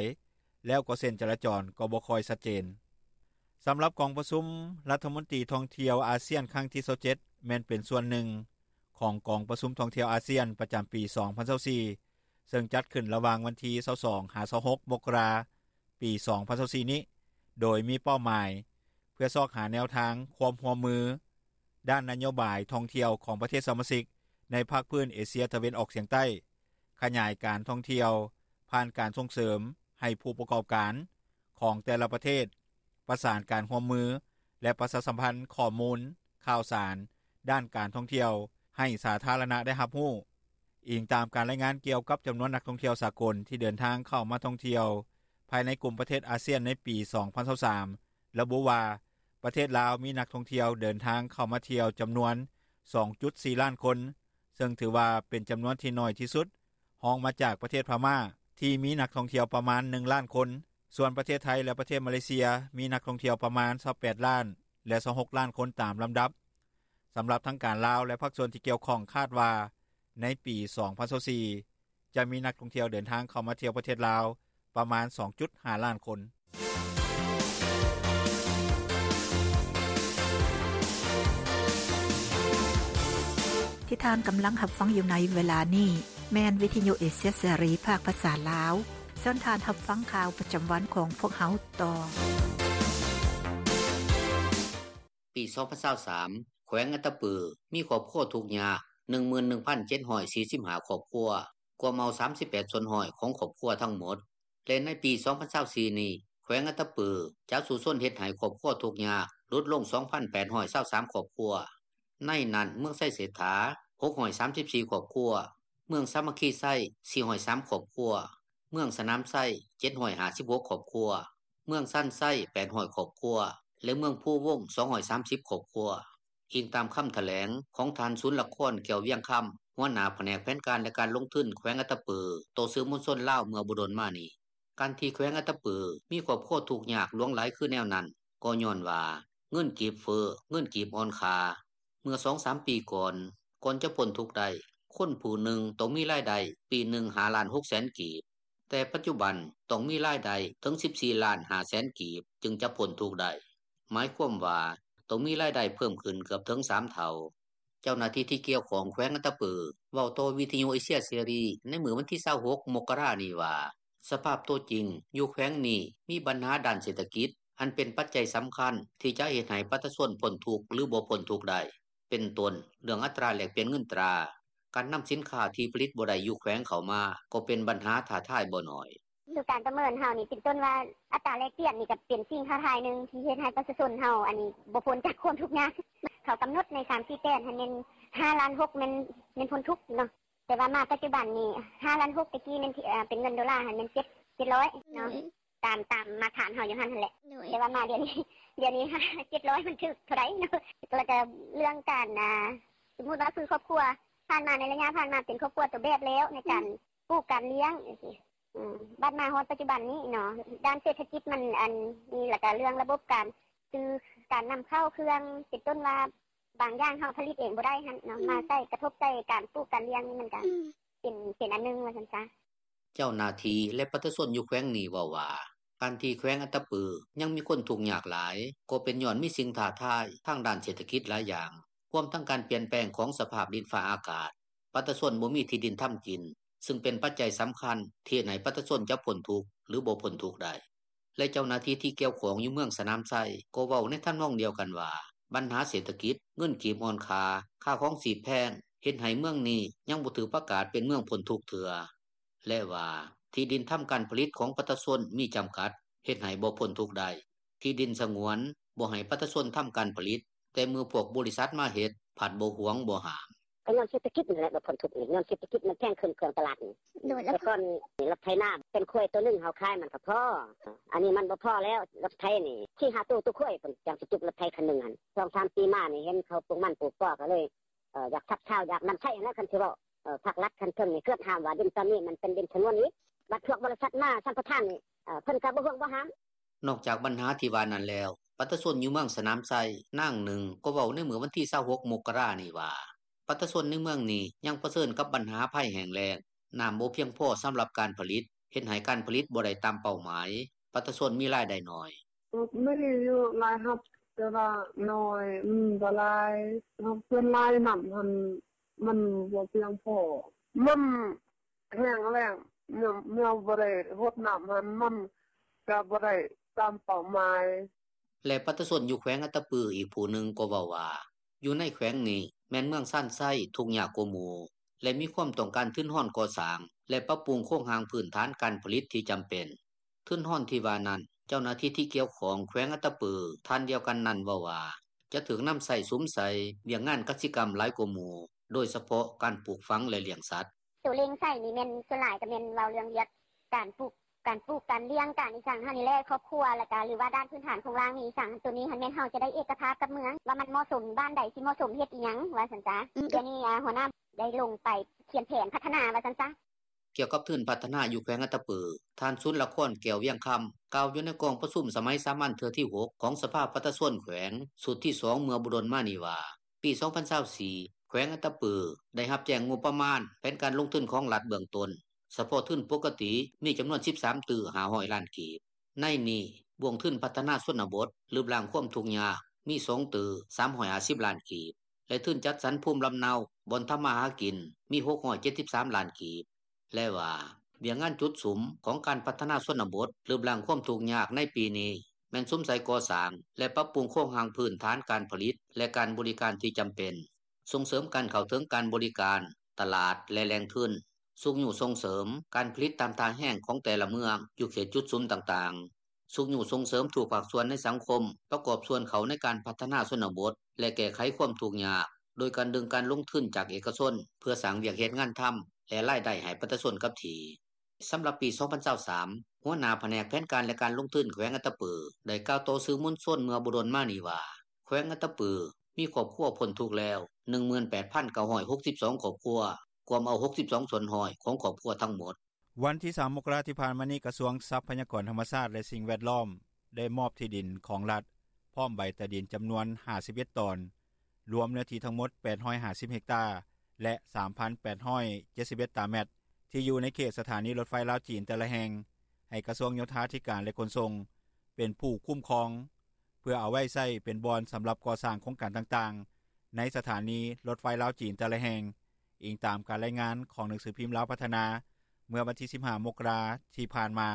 ແລ້ວກໍເສັ້ນຈະລາຈອນກໍບໍ່ຄ່ອຍຊັດເຈນ. ສຳລັບກອງປະຊຸມລັດຖະມົນຕີທ່ອງທ່ຽວອາຊຽນຄັ້ງທີຊາວເຈັດ ແມ່ນເປັນສ່ວນໜຶ່ງຂອງກອງປະຊຸມທ່ອງທ່ຽວອາຊຽນປະຈຳປີສອງພັນຊາວສີ່ ເຊິ່ງຈັດຂຶ້ນລະຫວ່າງວັນທີຊາວສອງ ຫາ ຊາວຫົກ ມົກກະລາ ປີສອງພັນຊາວສີ່ນີ້ ໂດຍມີເປົ້າໝາຍເພື່ອຊອກຫາແນວທາງຄວາມຮ່ວມມືດ້ານນະໂຍບາຍທ່ອງທ່ຽວຂອງປະເທດສະມາຊິກໃນພາກພື້ນເອເຊຍຕາເວັນອອກສຽງໃຕ້, ຂະຫຍາຍການທ່ອງທ່ຽວຜ່ານການສົ່ງເສີມໃຫ້ຜູ້ປະກອບການຂອງແຕ່ລະປະເທດ ປະສານການຮ່ວມມື ແລະ ປະຊາສຳພັນຂໍ້ມູນຂ່າວສານດ້ານການທ່ອງທ່ຽວໃຫ້ສາທາລະນະໄດ້ຮັບຮູ້. ອີງຕາມການລາຍງານກ່ຽວກັບຈຳນວນນັກທ່ອງທ່ຽວສາກົນທີ່ເດີນທາງເຂົ້າມາທ່ອງທ່ຽວພາຍໃນກຸ່ມປະເທດອາຊຽນໃນປີສອງພັນຊາວສາມ ລະບຸວ່າ ປະເທດລາວມີນັກທ່ອງທ່ຽວເດີນທາງເຂົ້າມາທ່ຽວຈຳນວນສອງຈຸດສີ່ລ້ານຄົນ, ເຊິ່ງຖືວ່າເປັນຈຳນວນທີ່ໜ້ອຍທີ່ສຸດ, ຮອງມາຈາກປະເທດພະມ້າທີ່ມີນັກທ່ອງທ່ຽວປະມານໜຶ່ງລ້ານຄົນ. ສ່ວນປະເທດໄທ ແລະ ປະເທດມາເລເຊຍ ມີນັກທ່ອງທ່ຽວປະມານຊາວແປດລ້ານ ແລະ ຊາວຫົກລ້ານຄົນຕາມລຳດັບ. ສຳລັບທາງການລາວ ແລະ ພາກສ່ວນທີ່ກ່ຽວຂ້ອງຄາດວ່າ ໃນປີສອງພັນຊາວສີ່ ຈະມີນັກທ່ອງທ່ຽວເດີນທາງເຂົ້າມາທ່ຽວປະເທດລາວປະມານສອງຈຸດຫ້າລ້ານຄົນ. ທີ່ທ່ານກຳລັງຮັບຟັງຢູ່ໃນເວລານີ້ ແມ່ນວິທະຍຸເອເຊຍເສລີພາກພາສາລາວ. ເຊີນທ່ານຮັບຟັງຂ່າວປະຈຳວັນຂອງພວກເຮົາຕໍ່. ປີສອງພັນຊາວສາມ ແຂວງອັດຕະປື ມີຄອບຄົວທຸກຍາກ ໜຶ່ງໝື່ນໜຶ່ງພັນເຈັດຮ້ອຍສີ່ສິບຫ້າຄອບຄົວ, ກວມເອົາສາມສິບແປດສ່ວນຮ້ອຍຂອງຄອບຄົວທັງໝົດ ແລະ ໃນປີສອງພັນຊາວສີ່ນີ້ ແຂວງອັດຕະປືຈະສູ້ຊົນເຮັດໃຫ້ຄອບຄົວທຸກຍາກຫຼຸດລົງສອງພັນແປດຮ້ອຍຊາວສາມຄອບຄົວ. ໃນນັ້ນ ເມືອງໄຊເສດຖາ ຫົກຮ້ອຍສາມສິບສີ່ຄອບຄົວ, ເມືອງສາມັກຄີໄຊ ສີ່ຮ້ອຍສາມຄອບຄົວ, ເມືອງສະໜາມໄຊ ເຈັດຮ້ອຍຫ້າສິບຫົກຄອບຄົວ, ເມືອງຊານໄຊ ແປດຮ້ອຍຄອບຄົວ ແລະ ເມືອງພູວົງ ສອງຮ້ອຍສາມສິບຄອບຄົວ, ອີງຕາມຄຳຖະແຫຼງຂອງທ່ານ ສູນລະຄອນ ແກ້ວວຽງຄຳ ຫົວໜ້າພະແນກແຜນການ ແລະ ການລົງທຶນແຂວງອັດຕະປື ຕໍ່ສື່ມວນຊົນລາວເມື່ອບໍ່ດົນມານີ້. ການທີ່ແຂວງອັດຕະປືມີຄອບຄົວທຸກຍາກຫຼວງຫຼາຍຄືແນວນັ້ນ ກໍຍ້ອນວ່າເງິນກີບເຟີ້, ເງິນກີບອ່ອນຄ່າ. ເມື່ອສອງສາມປີກ່ອນ, ກ່ອນຈະພົ້ນທຸກໄດ້, ຄົນຜູ້ໜຶ່ງຕ້ອງມີລາຍໄດ້ປີໜຶ່ງ ຫ້າລ້ານ ຫົກແສນກີບ, ແຕ່ປັດຈຸບັນຕ້ອງມີລາຍໄດ້ເຖິງ ສິບສີ່ລ້ານ ຫ້າແສນກີບ ຈຶ່ງຈະພົ້ນທຸກໄດ້. ໝາຍຄວາມວ່າ ຕ້ອງມີລາຍໄດ້ເພີ່ມຂຶ້ນເກືອບເຖິງ ສາມເທົ່າ. ເຈົ້າໜ້າທີ່ທີ່ກ່ຽວຂ້ອງແຂວງອັດຕະປື ເວົ້າຕໍ່ວິທຍຸເອເຊຍເສລີໃນມື້ວັນທີ ຊາວຫົກ ມົກກະລານີ້ວ່າ ສະພາບໂຕຈິງ ຢູ່ແຂວງນີ້ມີບັນຫາດ້ານເສດຖະກິດ ອັນເປັນປັດໄຈສຳຄັນ ທີ່ຈະເຮັດໃຫ້ປະຊາຊົນພົ້ນທຸກ ຫຼືບໍ່ພົ້ນທຸກໄດ້ ເປັນຕົ້ນເລື່ອງອັດຕາແລກປ່ຽນເງິນຕາ, ການນຳສິນຄ້າທີ່ຜະລິດບໍ່ໄດ້ຢູ່ແຂວງເຂົ້າມາ ກໍເປັນບັນຫາທ້າທາຍບໍ່ໜ້ອຍ. ຄືການປະເມີນເຮົານີ້ ເປັນຕົ້ນວ່າອັດຕາແລກປ່ຽນນີ້ ກໍເປັນສິ່ງທ້າທາຍໜຶ່ງ ທີ່ເຮັດໃຫ້ປະຊາຊົນເຮົາອັນນີ້ບໍ່ພົ້ນຈາກຄວາມທຸກຍາກ. ເຂົາກຳນົດໃນ ສາມສີ່ແປດ ຫັ້ນແມ່ນ ຫ້າລ້ານຫົກ ແມ່ນ ແມ່ນພົ້ນທຸກເນາະ, ແຕ່ວ່າມາປັດຈຸບັນນີ້ ຫ້າລ້ານຫົກ ແຕ່ກີ້ແມ່ນເປັນເງິນໂດລາຫັ້ນແມ່ນ ເຈັດ ເຈັດຮ້ອຍເນາະ, ຕາມ ຕາມມາດຕະຖານເຮົາຢູ່ຫັ້ນຫັ້ນແຫຼະ. ແຕ່ວ່າມາດຽວນີ້ ດຽວນີ້ ເຈັດຮ້ອຍ ມັນຖືກເທົ່າໃດເນາະ. ແລ້ວກໍເລື່ອງການ ອ່າ ສົມມຸດວ່າຄືຄອບຄົວຜ່ານມາ ໃນໄລຍະຜ່ານມາເປັນຄອບຄົວຕົວແບບແລ້ວ ໃນການປູກການລ້ຽງຈັ່ງຊີ້. ອືມ ບັດມາຮອດປັດຈຸບັນນີ້ເນາະ ດ້ານເສດຖະກິດມັນອັນນີ້ ແລ້ວກໍເລື່ອງລະບົບການຊື້ການນຳເຂົ້າເຄື່ອງ ເປັນຕົ້ນວ່າບາງຢ່າງເຮົາຜະລິດເອງບໍ່ໄດ້ຫັ້ນເນາະ ມາໃສ່ ກະທົບໃສ່ການປູກການລ້ຽງນີ້ ມັນກໍເປັນ ເປັນອັນໜຶ່ງວ່າຊັ້ນຊະ. ເຈົ້າໜ້າທີ່ ແລະ ປະຊາຊົນຢູ່ແຂວງນີ້ເວົ້າວ່າ ການທີ່ແຂວງອັດຕະປືຍັງມີຄົນທຸກຍາກຫຼາຍ ກໍເປັນຍ້ອນມີສິ່ງທ້າທາຍທາງດ້ານເສດຖະກິດຫຼາຍຢ່າງ ຮວມທັງການປ່ຽນແປງຂອງສະພາບດິນຟ້າອາກາດ. ປະຊາຊົນບໍ່ມີທີ່ດິນທຳກິນ ຊຶ່ງເປັນປັດໄຈສຳຄັນທີ່ເຮັດໃຫ້ປະຊາຊົນຈະພົ້ນທຸກ ຫຼືບໍ່ພົ້ນທຸກໄດ້. ແລະ ເຈົ້າໜ້າທີ່ທີ່ກ່ຽວຂ້ອງຢູ່ເມືອງສະໜາມໄຊ ກໍເວົ້າໃນທຳນອງດຽວກັນວ່າ ບັນຫາເສດຖະກິດ, ເງິນກີບອ່ອນຄ່າ, ຄ່າຄອງຊີບແພງ ເຮັດໃຫ້ເມືອງນີ້ຍັງບໍ່ຖືກປະກາດເປັນເມືອງພົ້ນທຸກເທື່ອ ແລະວ່າ ທີ່ດິນທຳການຜະລິດຂອງປະຊາຊົນມີຈຳກັດ ເຮັດໃຫ້ບໍ່ພົ້ນທຸກໄດ້. ທີ່ດິນສະຫງວນ ບໍ່ໃຫ້ປະຊາຊົນທຳການຜະລິດ, ແຕ່ເມື່ອພວກບໍລິສັດມາເຮັດ ພັດບໍ່ຫວງບໍ່ຫ້າມ. ກໍຍ້ອນເສດຖະກິດນີ້ແຫຼະ ບໍ່ພົ້ນທຸກນີ້ ຍ້ອນເສດຖະກິດມັນແພງຂຶ້ນ ເຄື່ອງຕະຫຼາດນີ້. ແຕ່ກ່ອນນີ້ ລົດໄຖນາເປັນຄວາຍໂຕໜຶ່ງ ເຮົາຂາຍມັນກໍພໍ, ອັນນີ້ມັນບໍ່ພໍແລ້ວ. ລົດໄຖນີ້ ສີ່ຫ້າໂຕ ໂຕຄວາຍ ເພິ່ນຈັ່ງຊິຈຸກລົດໄຖຄັນໜຶ່ງຫັ້ນ. ສອງສາມປີມານີ້ ເຫັນເຂົາປູກມັນປູກກໍ ກໍເລີຍ ເອີ ຢາກຊັບຊາວ ຢາກນຳໃຊ້ຫັ້ນແຫຼະ. ຄັນຊິເວົ້າ ເອີ ພາກລັດ ຄັນເທິງນີ້ ເກືອບຫ້າມວ່າດິນຕອນນີ້ມັນເປັນດິນສະຫງວນອີກ, ບັດພວກບໍລິສັດມາສຳປະທານນີ້ ເອີ ເພິ່ນກໍບໍ່ຫ່ວງບໍ່ຫ້າມ. ນອກຈາກບັນຫາທີ່ວ່ານັ້ນແລ້ວ, ປະຊາຊົນຢູ່ເມືອງສະໜາມໄຊ ນາງໜຶ່ງ ກໍເວົ້າໃນມື້ວັນທີ ຊາວຫົກ ມົກກະລານີ້ວ່າ ປະຊາຊົນໃນເມືອງນີ້ຍັງປະເຊີນກັບບັນຫາໄພແຫ້ງແລ້ງ, ນ້ຳບໍ່ພຽງພໍສຳລັບການຜະລິດ, ເຮັດໃຫ້ການຜະລິດບໍ່ໄດ້ຕາມເປົ້າໝາຍ, ປະຊາຊົນມີລາຍໄດ້ໜ້ອຍ. ມີຢູ່ລາຍຮັບ ແຕ່ວ່າໜ້ອຍ, ມັນບໍ່ຫຼາຍ. ເຮົາສ່ວນຫຼາຍນ້ຳຫັ້ນ ມັນບໍ່ພຽງພໍ, ມັນແຫ້ງແລ້ງ, ແນວ ແນວບໍ່ໄດ້ຫົດນ້ຳຫັ້ນ ມັນກະບໍ່ໄດ້ຕາມເປົ້າໝາຍ. ແລະ ປະຊາຊົນຢູ່ແຂວງອັດຕະປືອີກຜູ້ໜຶ່ງກໍເວົ້າວ່າ ຢູ່ໃນແຂວງນີ້ແມ່ນເມືອງຊານໄຊທຸກຍາກກວ່າໝູ່ ແລະ ມີຄວາມຕ້ອງການທຶນຮອນກໍ່ສ້າງ ແລະ ປັບປຸງໂຄງຮ່າງພື້ນຖານການຜະລິດທີ່ຈຳເປັນ. ທຶນຮອນທີ່ວ່ານັ້ນ ເຈົ້າໜ້າທີ່ທີ່ກ່ຽວຂ້ອງແຂວງອັດຕະປື ທ່ານດຽວກັນນັ້ນເວົ້າວ່າ ຈະຖືກນຳໃຊ້ສຸມໃສ່ວຽກງານກະສິກຳຫຼາຍກວ່າໝູ່, ໂດຍສະເພາະການປູກຝັງ ແລະ ລ້ຽງສັດ. ໂຕເລັ່ງໃສ່ນີ້ແມ່ນສ່ວນຫຼາຍກໍແມ່ນເວົ້າເລື່ອງວຽກການປູກ ການປູກການລ້ຽງ ການອີ່ສັງຫັ້ນນີ້ແຫຼະ ຄອບຄົວ ແລ້ວກະ ຫຼືວ່າດ້ານພື້ນຖານໂຄງລ່າງນີ້ອີ່ສັງ ໂຕນີ້ຫັ້ນແມ່ນເຮົາຈະໄດ້ເອກະພາບກັບເມືອງ ວ່າມັນເໝາະສົມ ບ້ານໃດຊິເໝາະສົມເຮັດອີ່ຫຍັງວ່າຊັ້ນຊະ. ດຽວນີ້ ອາ ຫົວໜ້າໄດ້ລົງໄປຂຽນແຜນພັດທະນາວ່າຊັ້ນຊະ. ກ່ຽວກັບທຶນພັດທະນາຢູ່ແຂວງອັດຕະປື, ທ່ານ ສຸນລະຄອນ ແກ້ວວຽງຄຳ ກ່າວຢູ່ໃນກອງປະຊຸມສະໄໝສາມັນເທື່ອທີຫົກ ຂອງສະພາປະຊາຊົນແຂວງ ຊຸດທີສອງ ເມື່ອບໍ່ດົນມານີ້ວ່າ ປີສອງພັນຊາວສີ່ ແຂວງອັດຕະປືໄດ້ຮັບແຈ້ງງົບປະມານແຜນການລົງທຶນຂອງລັດເບື້ອງຕົ້ນ ສະເພາະທຶນປົກກະຕິມີຈຳນວນສິບສາມຕື້ຫ້າຮ້ອຍລ້ານກີບ. ໃນນີ້ ບ່ວງທຶນພັດທະນາຊົນນະບົດ ລຶບລ້າງຄວາມທຸກຍາກ ມີສອງຕື້ສາມຮ້ອຍຫ້າສິບລ້ານກີບ ແລະ ທຶນຈັດສັນພູມລຳເນົາ ບ່ອນທຳມາຫາກິນ ມີຫົກຮ້ອຍເຈັດສິບສາມລ້ານກີບ ແລະວ່າ ວຽກງານຈຸດສຸມຂອງການພັດທະນາຊົນນະບົດ ລຶບລ້າງຄວາມທຸກຍາກໃນປີນີ້ ແມ່ນສຸມໃສ່ກໍ່ສ້າງ ແລະ ປັບປຸງໂຄງຮ່າງພື້ນຖານການຜະລິດ ແລະ ການບໍລິການທີ່ຈຳເປັນ, ສົ່ງເສີມການເຂົ້າເຖິງການບໍລິການ, ຕະຫຼາດ ແລະ ແຫຼ່ງທຶນ, ຊຸກຍູ້ສົ່ງເສີມການຜະລິດຕາມທ່າແຮງຂອງແຕ່ລະເມືອງຢູ່ເຂດຈຸດສຸມຕ່າງໆ, ຊຸກຍູ້ສົ່ງເສີມທຸກພາກສ່ວນໃນສັງຄົມປະກອບສ່ວນເຂົ້າໃນການພັດທະນາຊົນນະບົດ ແລະ ແກ້ໄຂຄວາມທຸກຍາກ ໂດຍການດຶງການລົງທຶນຈາກເອກະຊົນ ເພື່ອສ້າງວຽກເຮັດງານທຳ ແລະ ລາຍໄດ້ໃຫ້ປະຊາຊົນກັບທີ່. ສຳລັບປີສອງພັນຊາວສາມ ຫົວໜ້າພະແນກແຜນການ ແລະ ການລົງທຶນແຂວງອັດຕະປື ໄດ້ກ່າວຕໍ່ສື່ມວນຊົນເມື່ອບໍ່ດົນມານີ້ວ່າ ແຂວງອັດຕະປືມີຄອບຄົວພົ້ນທຸກແລ້ວ ໜຶ່ງໝື່ນແປດພັນເກົ້າຮ້ອຍຫົກສິບສອງຄອບຄົວ, ກວມເອົາ ຫົກສິບສອງສ່ວນຮ້ອຍ ຂອງຄອບຄົວທັງໝົດ. ວັນທີສາມ ມົກກະລາ ທີ່ຜ່ານມານີ້ ກະຊວງຊັບພະຍາກອນທຳມະຊາດ ແລະ ສິ່ງແວດລ້ອມ ໄດ້ມອບທີ່ດິນຂອງລັດ ພ້ອມໃບຕາດິນຈຳນວນຫ້າສິບເອັດຕອນ ລວມເນື້ອທີ່ທັງໝົດແປດຮ້ອຍຫ້າສິບເຮັກຕາ ແລະ ສາມພັນແປດຮ້ອຍເຈັດສິບເອັດຕາແມັດ ທີ່ຢູ່ໃນເຂດສະຖານີລົດໄຟລາວ-ຈີນແຕ່ລະແຫ່ງ ໃຫ້ກະຊວງໂຍທາທິການ ແລະຂົນສົ່ງ ເປັນຜູ້ຄຸ້ມຄອງ ເພື່ອເອົາໄວ້ໃຊ້ເປັນບ່ອນສຳລັບກໍ່ສ້າງໂຄງການຕ່າງໆ ໃນສະຖານີລົດໄຟລາວ-ຈີນແຕ່ລະແຫ່ງ, ອີງຕາມການລາຍງານຂອງໜັງສືພິມລາວພັດທະນາ ເມື່ອວັນທີສິບຫ້າ ມົກກະລາ ທີ່ຜ່ານມາ.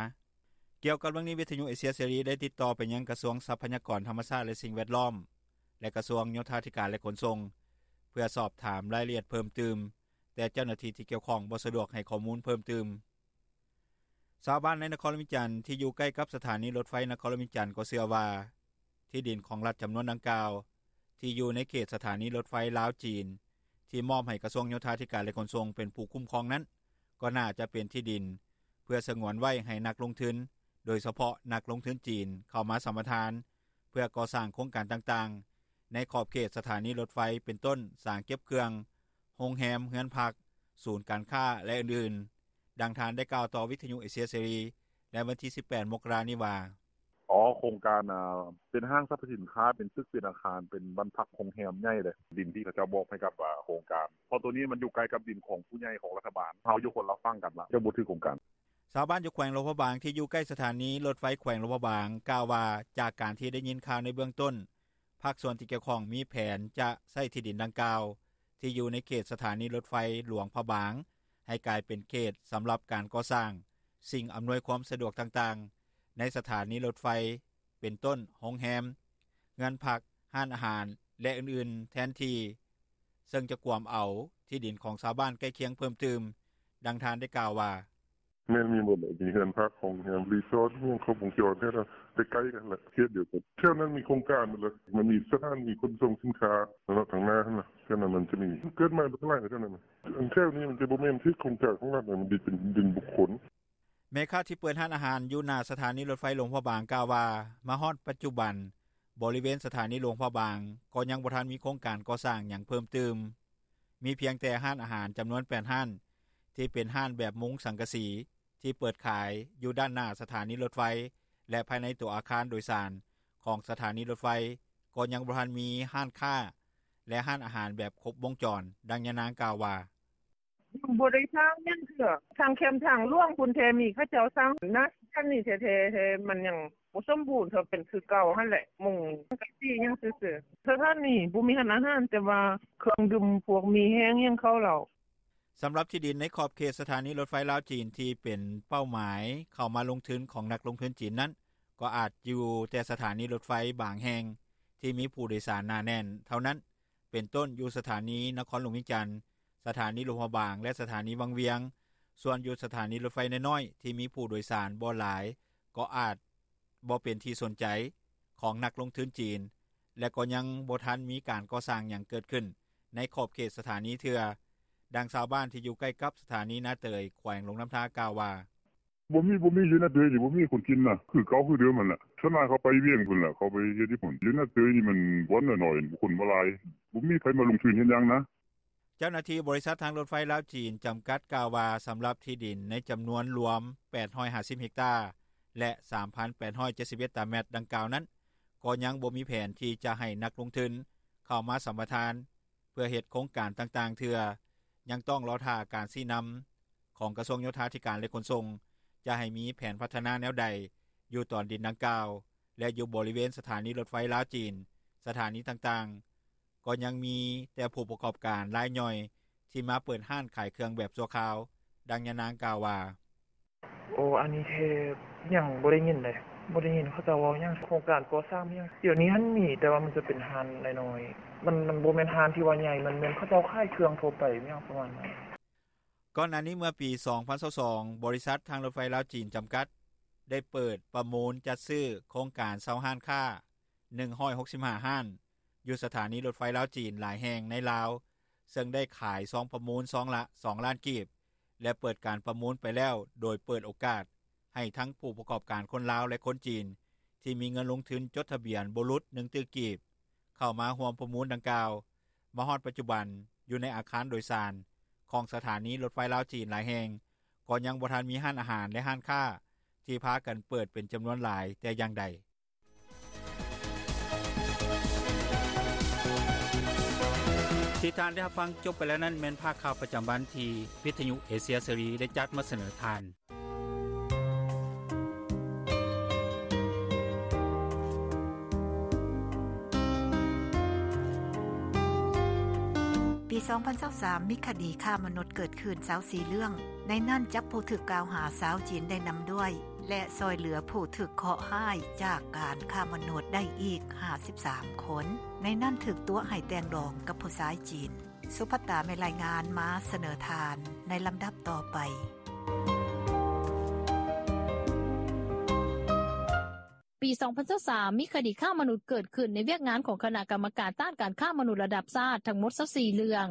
ກ່ຽວກັບເລື່ອງນີ້, ວິທຍຸເອເຊຍເສລີ ໄດ້ຕິດຕໍ່ໄປຍັງກະຊວງຊັບພະຍາກອນທຳມະຊາດ ແລະສິ່ງແວດລ້ອມ ແລະກະຊວງໂຍທາທິການ ແລະຂົນສົ່ງ ເພື່ອສອບຖາມລາຍລະອຽດເພີ່ມຕື່ມ, ແຕ່ເຈົ້າໜ້າທີ່ທີ່ກ່ຽວຂ້ອງບໍ່ສະດວກໃຫ້ຂໍ້ມູນເພີ່ມຕື່ມ. ຊາວບ້ານໃນນະຄອນຫຼວງວຽງຈັນ ທີ່ຢູ່ໃກ້ກັບສະຖານີລົດໄຟນະຄອນຫຼວງວຽງຈັນ ກໍເຊື່ອວ່າ ທີ່ດິນຂອງລັດຈຳນວນດັ່ງກ່າວ ທີ່ຢູ່ໃນເຂດສະຖານີລົດໄຟລາວ-ຈີນ ທີ່ມອບໃຫ້ກະຊວງໂຍທາທິການ ແລະຂົນສົ່ງ ເປັນຜູ້ຄຸ້ມຄອງນັ້ນ ກໍໜ້າຈະເປັນທີ່ດິນ ເພື່ອສະຫງວນໄວ້ໃຫ້ນັກລົງທຶນ, ໂດຍສະເພາະນັກລົງທຶນຈີນ ເຂົ້າມາສຳປະທານ ເພື່ອກໍ່ສ້າງໂຄງການຕ່າງໆ ໃນຂອບເຂດສະຖານີລົດໄຟ ເປັນຕົ້ນ ສາງເກັບເຄື່ອງ, ໂຮງແຮມ, ເຮືອນພັກ, ສູນການຄ້າ ແລະອື່ນໆ. ດັ່ງທ່ານໄດ້ກ່າວຕໍ່ວິທຍຸເອເຊຍເສລີ ໃນວັນທີສິບແປດ ມົກກະລານີ້ວ່າ: ອໍ ໂຄງການ ເປັນຫ້າງສັບພະສິນຄ້າ ເປັນຕຶກ ເປັນອາຄານ ເປັນບ້ານພັກ ໂຮງແຮມໃຫຍ່ເດ້. ດິນທີ່ເຂົາເຈົ້າມອບໃຫ້ກັບ ໂຄງການ ເພາະໂຕນີ້ມັນຢູ່ໃກ້ກັບດິນຂອງຜູ້ໃຫຍ່ຂອງລັດຖະບານ. ເຮົາຢູ່ຄົນລະຝັ່ງກັນລະ ເຈົ້າບໍ່ຖືກໂຄງການ. ຊາວບ້ານຢູ່ແຂວງຫຼວງພະບາງ ທີ່ຢູ່ໃກ້ສະຖານີລົດໄຟແຂວງຫຼວງພະບາງ ກ່າວວ່າ ຈາກການທີ່ໄດ້ຍິນຂ່າວໃນເບື້ອງຕົ້ນ ພາກສ່ວນທີ່ກ່ຽວຂ້ອງມີແຜນຈະໃຊ້ທີ່ດິນດັ່ງກ່າວ ທີ່ຢູ່ໃນເຂດສະຖານີລົດໄຟຫຼວງພະບາງ ໃຫ້ກາຍເປັນເຂດສຳລັບການກໍ່ສ້າງສິ່ງອຳນວຍຄວາມສະດວກຕ່າງໆ ໃນສະຖານີລົດໄຟ ເປັນຕົ້ນ ໂຮງແຮມ, ເຮືອນພັກ, ຮ້ານອາຫານ ແລະອື່ນໆ ແທນທີ່ ເຊິ່ງຈະກວມເອົາທີ່ດິນຂອງຊາວບ້ານໃກ້ຄຽງເພີ່ມຕື່ມ. ດັ່ງທ່ານໄດ້ກ່າວວ່າ: ແມ່ນ ມີໝົດແຫຼະ ມີເຮືອນພັກ ໂຮງແຮມ ຣີສອດ ມີຫຍັງຄົບວົງຈອນ ແຖວນັ້ນ ໃກ້ໆກັນແຫຼະ ເຂດດຽວກັນ. ແຖວນັ້ນມີໂຄງການໝົດແລ້ວ ມັນມີສະຖານີຂົນສົ່ງສິນຄ້າ ທາງໜ້າຫັ້ນນະ ແຖວນັ້ນມັນຈະມີ ເກີດໃໝ່ໝົດຫຼາຍແຖວນັ້ນ. ອັນແຖວນີ້ມັນຈະບໍ່ແມ່ນເຂດໂຄງການຂອງລັດ ມັນເປັນດິນບຸກຄົນ. ແມ່ຄ້າທີ່ເປີດຮ້ານອາຫານຢູ່ໜ້າສະຖານີລົດໄຟຫຼວງພະບາງ ກ່າວວ່າ ມາຮອດປັດຈຸບັນ ບໍລິເວນສະຖານີຫຼວງພະບາງ ກໍຍັງບໍ່ທັນມີໂຄງການກໍ່ສ້າງຫຍັງເພີ່ມຕື່ມ. ມີພຽງແຕ່ຮ້ານອາຫານຈຳນວນແປດຮ້ານ ທີ່ເປັນຮ້ານແບບມຸງສັງກະສີ ທີ່ເປີດຂາຍຢູ່ດ້ານໜ້າສະຖານີລົດໄຟ ແລະ ພາຍໃນຕົວອາຄານໂດຍສານຂອງສະຖານີລົດໄຟ ກໍຍັງບໍ່ທັນມີຮ້ານຄ້າ ແລະ ຮ້ານອາຫານແບບຄົບວົງຈອນ. ດັ່ງຍານາງກ່າວວ່າ: ຍັງບໍ່ໄດ້ສ້າງຫຍັງເທື່ອ ທາງແຄມທາງຫຼວງພຸ້ນແທ້ ມີເຂົາເຈົ້າສ້າງນະ ແຖວນີ້ແທ້ໆ ແທ້ມັນຍັງບໍ່ສົມບູນເທື່ອ ເປັນຄືເກົ່າຫັ້ນແຫຼະ ມຸງສັງກະສີຫຍັງຊື່ໆ. ສະຖານີບໍ່ມີຮ້ານອາຫານ ແຕ່ວ່າເຄື່ອງດື່ມ ພວກໝີ່ແຫ້ງຫຍັງ ເຂົ້າເຫຼົ້າ. ສຳລັບທີ່ດິນໃນຂອບເຂດສະຖານີລົດໄຟລາວ-ຈີນ ທີ່ເປັນເປົ້າໝາຍເຂົ້າມາລົງທຶນຂອງນັກລົງທຶນຈີນນັ້ນ ກໍອາດຢູ່ແຕ່ສະຖານີລົດໄຟບາງແຫ່ງ ທີ່ມີຜູ້ໂດຍສານໜາແໜ້ນເທົ່ານັ້ນ ເປັນຕົ້ນ ຢູ່ສະຖານີນະຄອນຫຼວງວຽງຈັນ, ສະຖານີຫຼວງພະບາງ ແລະ ສະຖານີວັງວຽງ. ສ່ວນຢູ່ສະຖານີລົດໄຟນ້ອຍໆ ທີ່ມີຜູ້ໂດຍສານບໍ່ຫຼາຍ ກໍອາດບໍ່ເປັນທີ່ສົນໃຈຂອງນັກລົງທຶນຈີນ ແລະ ກໍຍັງບໍ່ທັນມີການກໍ່ສ້າງຫຍັງເກີດຂຶ້ນໃນຂອບເຂດສະຖານີເທື່ອ. ດັ່ງຊາວບ້ານທີ່ຢູ່ໃກ້ກັບສະຖານີນາເຕີຍ ແຂວງຫຼວງນ້ຳທາ ກ່າວວ່າ: ບໍ່ມີ ບໍ່ມີ ຢູ່ນາເຕີຍນີ້ບໍ່ມີຄົນຈີນນະ ຄືເກົ່າຄືເດີມຫັ້ນແຫຼະ. ສ່ວນຫຼາຍເຂົາໄປວຽງພຸ້ນແຫຼະ ເຂົາໄປເຮັດຢູ່ພຸ້ນ. ຢູ່ນາເຕີຍນີ້ມັນບ່ອນນ້ອຍໆ ຄົນບໍ່ຫຼາຍ ບໍ່ມີໃຜມາລົງທຶນເຮັດຫຍັງນະ. ເຈົ້າໜ້າທີ່ບໍລິສັດທາງລົດໄຟລາວ-ຈີນຈຳກັດ ກ່າວວ່າ ສຳລັບທີ່ດິນໃນຈຳນວນລວມແປດຮ້ອຍຫ້າສິບເຮັກຕາ ແລະ ສາມພັນແປດຮ້ອຍເຈັດສິບເອັດຕາແມັດດັ່ງກ່າວນັ້ນ ກໍຍັງບໍ່ມີແຜນທີ່ຈະໃຫ້ນັກລົງທຶນເຂົ້າມາສຳປະທານ ເພື່ອເຮັດໂຄງການຕ່າງໆເທື່ອ, ຍັງຕ້ອງລໍຖ້າການຊີ້ນຳຂອງກະຊວງໂຍທາທິການ ແລະ ຂົນສົ່ງ ຈະໃຫ້ມີແຜນພັດທະນາແນວໃດຢູ່ຕອນດິນດັ່ງກ່າວ ແລະ ຢູ່ບໍລິເວນສະຖານີລົດໄຟລາວ-ຈີນ ສະຖານີຕ່າງໆ ກໍຍັງມີແຕ່ຜູ້ປະກອບການລາຍຍ່ອຍທີ່ມາເປີດຮ້ານຂາຍເຄື່ອງແບບຊົ່ວຄາວ. ດັ່ງຍານາງກ່າວວ່າ: ໂອ ອັນນີ້ແທ້ຍັງບໍ່ໄດ້ຍິນເດ້ ບໍ່ໄດ້ຍິນເຂົາເຈົ້າເວົ້າຫຍັງ ໂຄງການກໍ່ສ້າງຫຍັງ. ດຽວນີ້ຫັ້ນມີ ແຕ່ວ່າມັນຈະເປັນຮ້ານນ້ອຍໆ ມັນ ມັນບໍ່ແມ່ນຮ້ານທີ່ວ່າໃຫຍ່ ມັນແມ່ນເຂົາເຈົ້າຂາຍເຄື່ອງທົ່ວໄປ ຫຍັງປະມານນັ້ນ. ກ່ອນໜ້ານີ້ເມື່ອປີສອງພັນຊາວສອງ ບໍລິສັດທາງລົດໄຟລາວ-ຈີນຈຳກັດ ໄດ້ເປີດປະມູນຈັດຊື້ໂຄງການເຊົ່າຮ້ານຄ້າໜຶ່ງຮ້ອຍຫົກສິບຫ້າຮ້ານ ຢູ່ສະຖານີລົດໄຟລາວ-ຈີນຫຼາຍແຫ່ງໃນລາວ ເຊິ່ງໄດ້ຂາຍຊອງປະມູນຊອງລະສອງລ້ານກີບ ແລະ ເປີດການປະມູນໄປແລ້ວ ໂດຍເປີດໂອກາດໃຫ້ທັງຜູ້ປະກອບການຄົນລາວ ແລະ ຄົນຈີນ ທີ່ມີເງິນລົງທຶນຈົດທະບຽນບໍ່ຫຼຸດໜຶ່ງຕື້ກີບ ເຂົ້າມາຮ່ວມປະມູນດັ່ງກ່າວ. ມາຮອດປັດຈຸບັນ ຢູ່ໃນອາຄານໂດຍສານຂອງສະຖານີລົດໄຟລາວ-ຈີນຫຼາຍແຫ່ງ ກໍຍັງບໍ່ທັນມີຮ້ານອາຫານ ແລະ ຮ້ານຄ້າທີ່ພາກັນເປີດເປັນຈຳນວນຫຼາຍແຕ່ຢ່າງໃດ. ທີ່ທ່ານໄດ້ຮັບຟັງຈົບໄປແລ້ວນັ້ນ ແມ່ນພາກຂ່າວປະຈຳວັນທີ່ວິທຍຸເອເຊຍເສລີໄດ້ຈັດມາສະເໜີທ່ານ. ປີສອງພັນຊາວສາມ ມີຄະດີຄ້າມະນຸດເກີດຂຶ້ນຊາວສີ່ເລື່ອງ, ໃນນັ້ນຈັບຜູ້ຖືກກ່າວຫາຊາວຈີນໄດ້ນຳດ້ວຍ ແລະ ຊ່ອຍເຫຼືອຜູ້ຖືກເຄາະຮ້າຍຈາກການຄ້າມະນຸດໄດ້ອີກຫ້າສິບສາມຄົນ, ໃນນັ້ນຖືກຕົວະໃຫ້ແຕ່ງດອງກັບຜູ້ຊາຍຈີນ. ສຸພັດຕາ ແມ່ນລາຍງານມາສະເໜີທ່ານໃນລຳດັບຕໍ່ໄປ. ປີສອງພັນຊາວສາມ ມີຄະດີຄ້າມະນຸດເກີດຂຶ້ນໃນວຽກງານຂອງຄະນະກຳມະການຕ້ານການຄ້າມະນຸດລະດັບຊາດທັງໝົດຊາວສີ່ເລື່ອງ,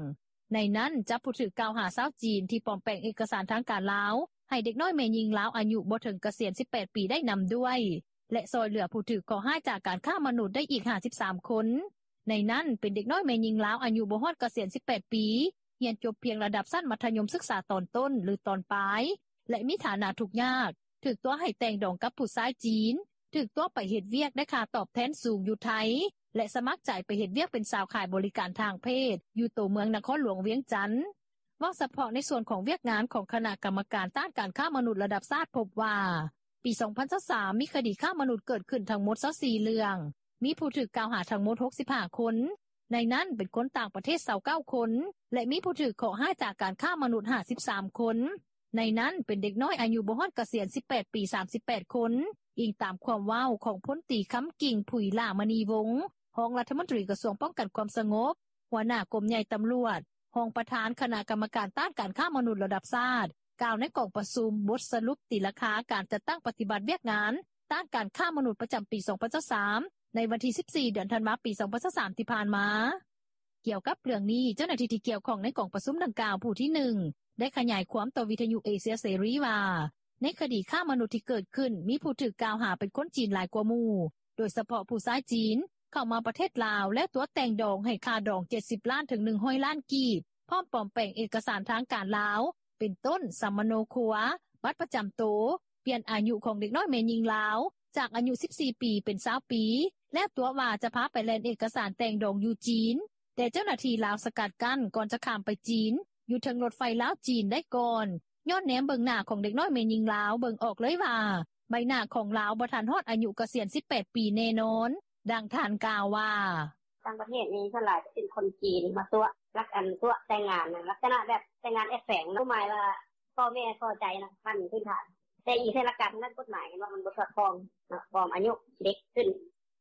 ໃນນັ້ນຈັບຜູ້ຖືກກ່າວຫາຊາວຈີນທີ່ປອມແປງເອກະສານທາງການລາວ ໃຫ້ເດັກນ້ອຍແມ່ຍິງລາວອາຍຸບໍ່ເຖິງກະສຽນສິບແປດປີໄດ້ນຳດ້ວຍ ແລະ ຊ່ອຍເຫຼືອຜູ້ຖືກເຄາະຮ້າຍຈາກການຄ້າມະນຸດໄດ້ອີກຫ້າສິບສາມຄົນ, ໃນນັ້ນເປັນເດັກນ້ອຍແມ່ຍິງລາວອາຍຸບໍ່ຮອດກະສຽນສິບແປດປີ, ຮຽນຈົບພຽງລະດັບຊັ້ນມັດທະຍົມສຶກສາຕອນຕົ້ນ ຫຼື ຕອນປາຍ ແລະ ມີຖານະທຸກຍາກ, ຖືກຕົວະໃຫ້ແຕ່ງດອງກັບຜູ້ຊາຍຈີນ, ຖືກຕົວະໄປເຮັດວຽກໄດ້ຄ່າຕອບແທນສູງຢູ່ໄທ ແລະ ສະໝັກໃຈໄປເຮັດວຽກເປັນສາວຂາຍບໍລິການທາງເພດຢູ່ໂຕເມືອງນະຄອນຫຼວງວຽງຈັນ. ເວົ້າສະເພາະໃນສ່ວນຂອງວຽກງານຂອງຄະນະກຳມະການຕ້ານການຄ້າມະນຸດລະດັບຊາດພົບວ່າ ປີສອງພັນຊາວສາມ ມີຄະດີຄ້າມະນຸດເກີດຂຶ້ນທັງໝົດຊາວສີ່ເລື່ອງ, ມີຜູ້ຖືກກ່າວຫາທັງໝົດຫົກສິບຫ້າຄົນ, ໃນນັ້ນເປັນຄົນຕ່າງປະເທດຊາວເກົ້າຄົນ ແລະ ມີຜູ້ຖືກເຄາະຮ້າຍຈາກການຄ້າມະນຸດຫ້າສິບສາມຄົນ, ໃນນັ້ນເປັນເດັກນ້ອຍອາຍຸບໍ່ຮອດກະສຽນສິບແປດປີສາມສິບແປດຄົນ, ອີງຕາມຄວາມເວົ້າຂອງພົນຕີ ຄຳກິ່ງ ຜຸຍຫຼ້າມະນີວົງ ຮອງລັດຖະມົນຕີກະຊວງປ້ອງກັນຄວາມສະຫງົບ, ຫົວໜ້າກົມໃຫຍ່ຕຳຫຼວດ, ຮອງປະທານຄະນະກຳມະການຕ້ານການຄ້າມະນຸດລະດັບຊາດ ກ່າວໃນກອງປະຊຸມບົດສະຫຼຸບຕີລາຄາການຈັດຕັ້ງປະຕິບັດວຽກງານຕ້ານການຄ້າມະນຸດປະຈຳປີສອງພັນຊາວສາມ ໃນວັນທີສິບສີ່ ເດືອນທັນວາ ປີສອງພັນຊາວສາມ ທີ່ຜ່ານມາ. ກ່ຽວກັບເລື່ອງນີ້ ເຈົ້າໜ້າທີ່ທີ່ກ່ຽວຂ້ອງໃນກອງປະຊຸມດັ່ງກ່າວຜູ້ທີໜຶ່ງ ໄດ້ຂະຫຍາຍຄວາມຕໍ່ວິທຍຸເອເຊຍເສລີວ່າ ໃນຄະດີຄ້າມະນຸດທີ່ເກີດຂຶ້ນ ມີຜູ້ຖືກກ່າວຫາເປັນຄົນຈີນຫຼາຍກວ່າໝູ່, ໂດຍສະເພາະຜູ້ຊາຍຈີນ ເຂົ້າມາປະເທດລາວ ແລ້ວຕົວະແຕ່ງດອງໃຫ້ຄ່າດອງເຈັດສິບລ້ານ ເຖິງ ໜຶ່ງຮ້ອຍລ້ານກີບ, ພ້ອມປອມແປງເອກະສານທາງການລາວ ເປັນຕົ້ນ ສຳມະໂນຄົວ, ບັດປະຈຳໂຕ, ປ່ຽນອາຍຸຂອງເດັກນ້ອຍແມ່ຍິງລາວ ຈາກອາຍຸສິບສີ່ປີເປັນຊາວປີ, ແລ້ວຕົວະວ່າຈະພາໄປແລ່ນເອກະສານແຕ່ງດອງຢູ່ຈີນ, ແຕ່ເຈົ້າໜ້າທີ່ລາວສະກັດກັ້ນກ່ອນຈະຂ້າມໄປຈີນ ຢູ່ເທິງລົດໄຟລາວ-ຈີນໄດ້ກ່ອນ, ຍ້ອນແນມເບິ່ງໜ້າຂອງເດັກນ້ອຍແມ່ຍິງລາວ ເບິ່ງອອກເລີຍວ່າ ໃບໜ້າຂອງລາວບໍ່ທັນຮອດອາຍຸກະສຽນສິບແປດປີແນ່ນອນ. ດັ່ງທ່ານກ່າວວ່າ: ຕ່າງປະເທດນີ້ສ່ວນຫຼາຍຈະເປັນຄົນຈີນມາຕົວະ ລັກອັນຕົວະແຕ່ງງານ ລັກສະນະແບບແຕ່ງງານແອບແຝງ ຄວາມໝາຍວ່າພໍ່ແມ່ພໍໃຈນະ ຂັ້ນພື້ນຖານ ແຕ່ອີງໃສ່ຫຼັກການທາງດ້ານກົດໝາຍ ເຫັນວ່າມັນບໍ່ສອດຄ່ອງເນາະ ປອມອາຍຸເດັກຂຶ້ນ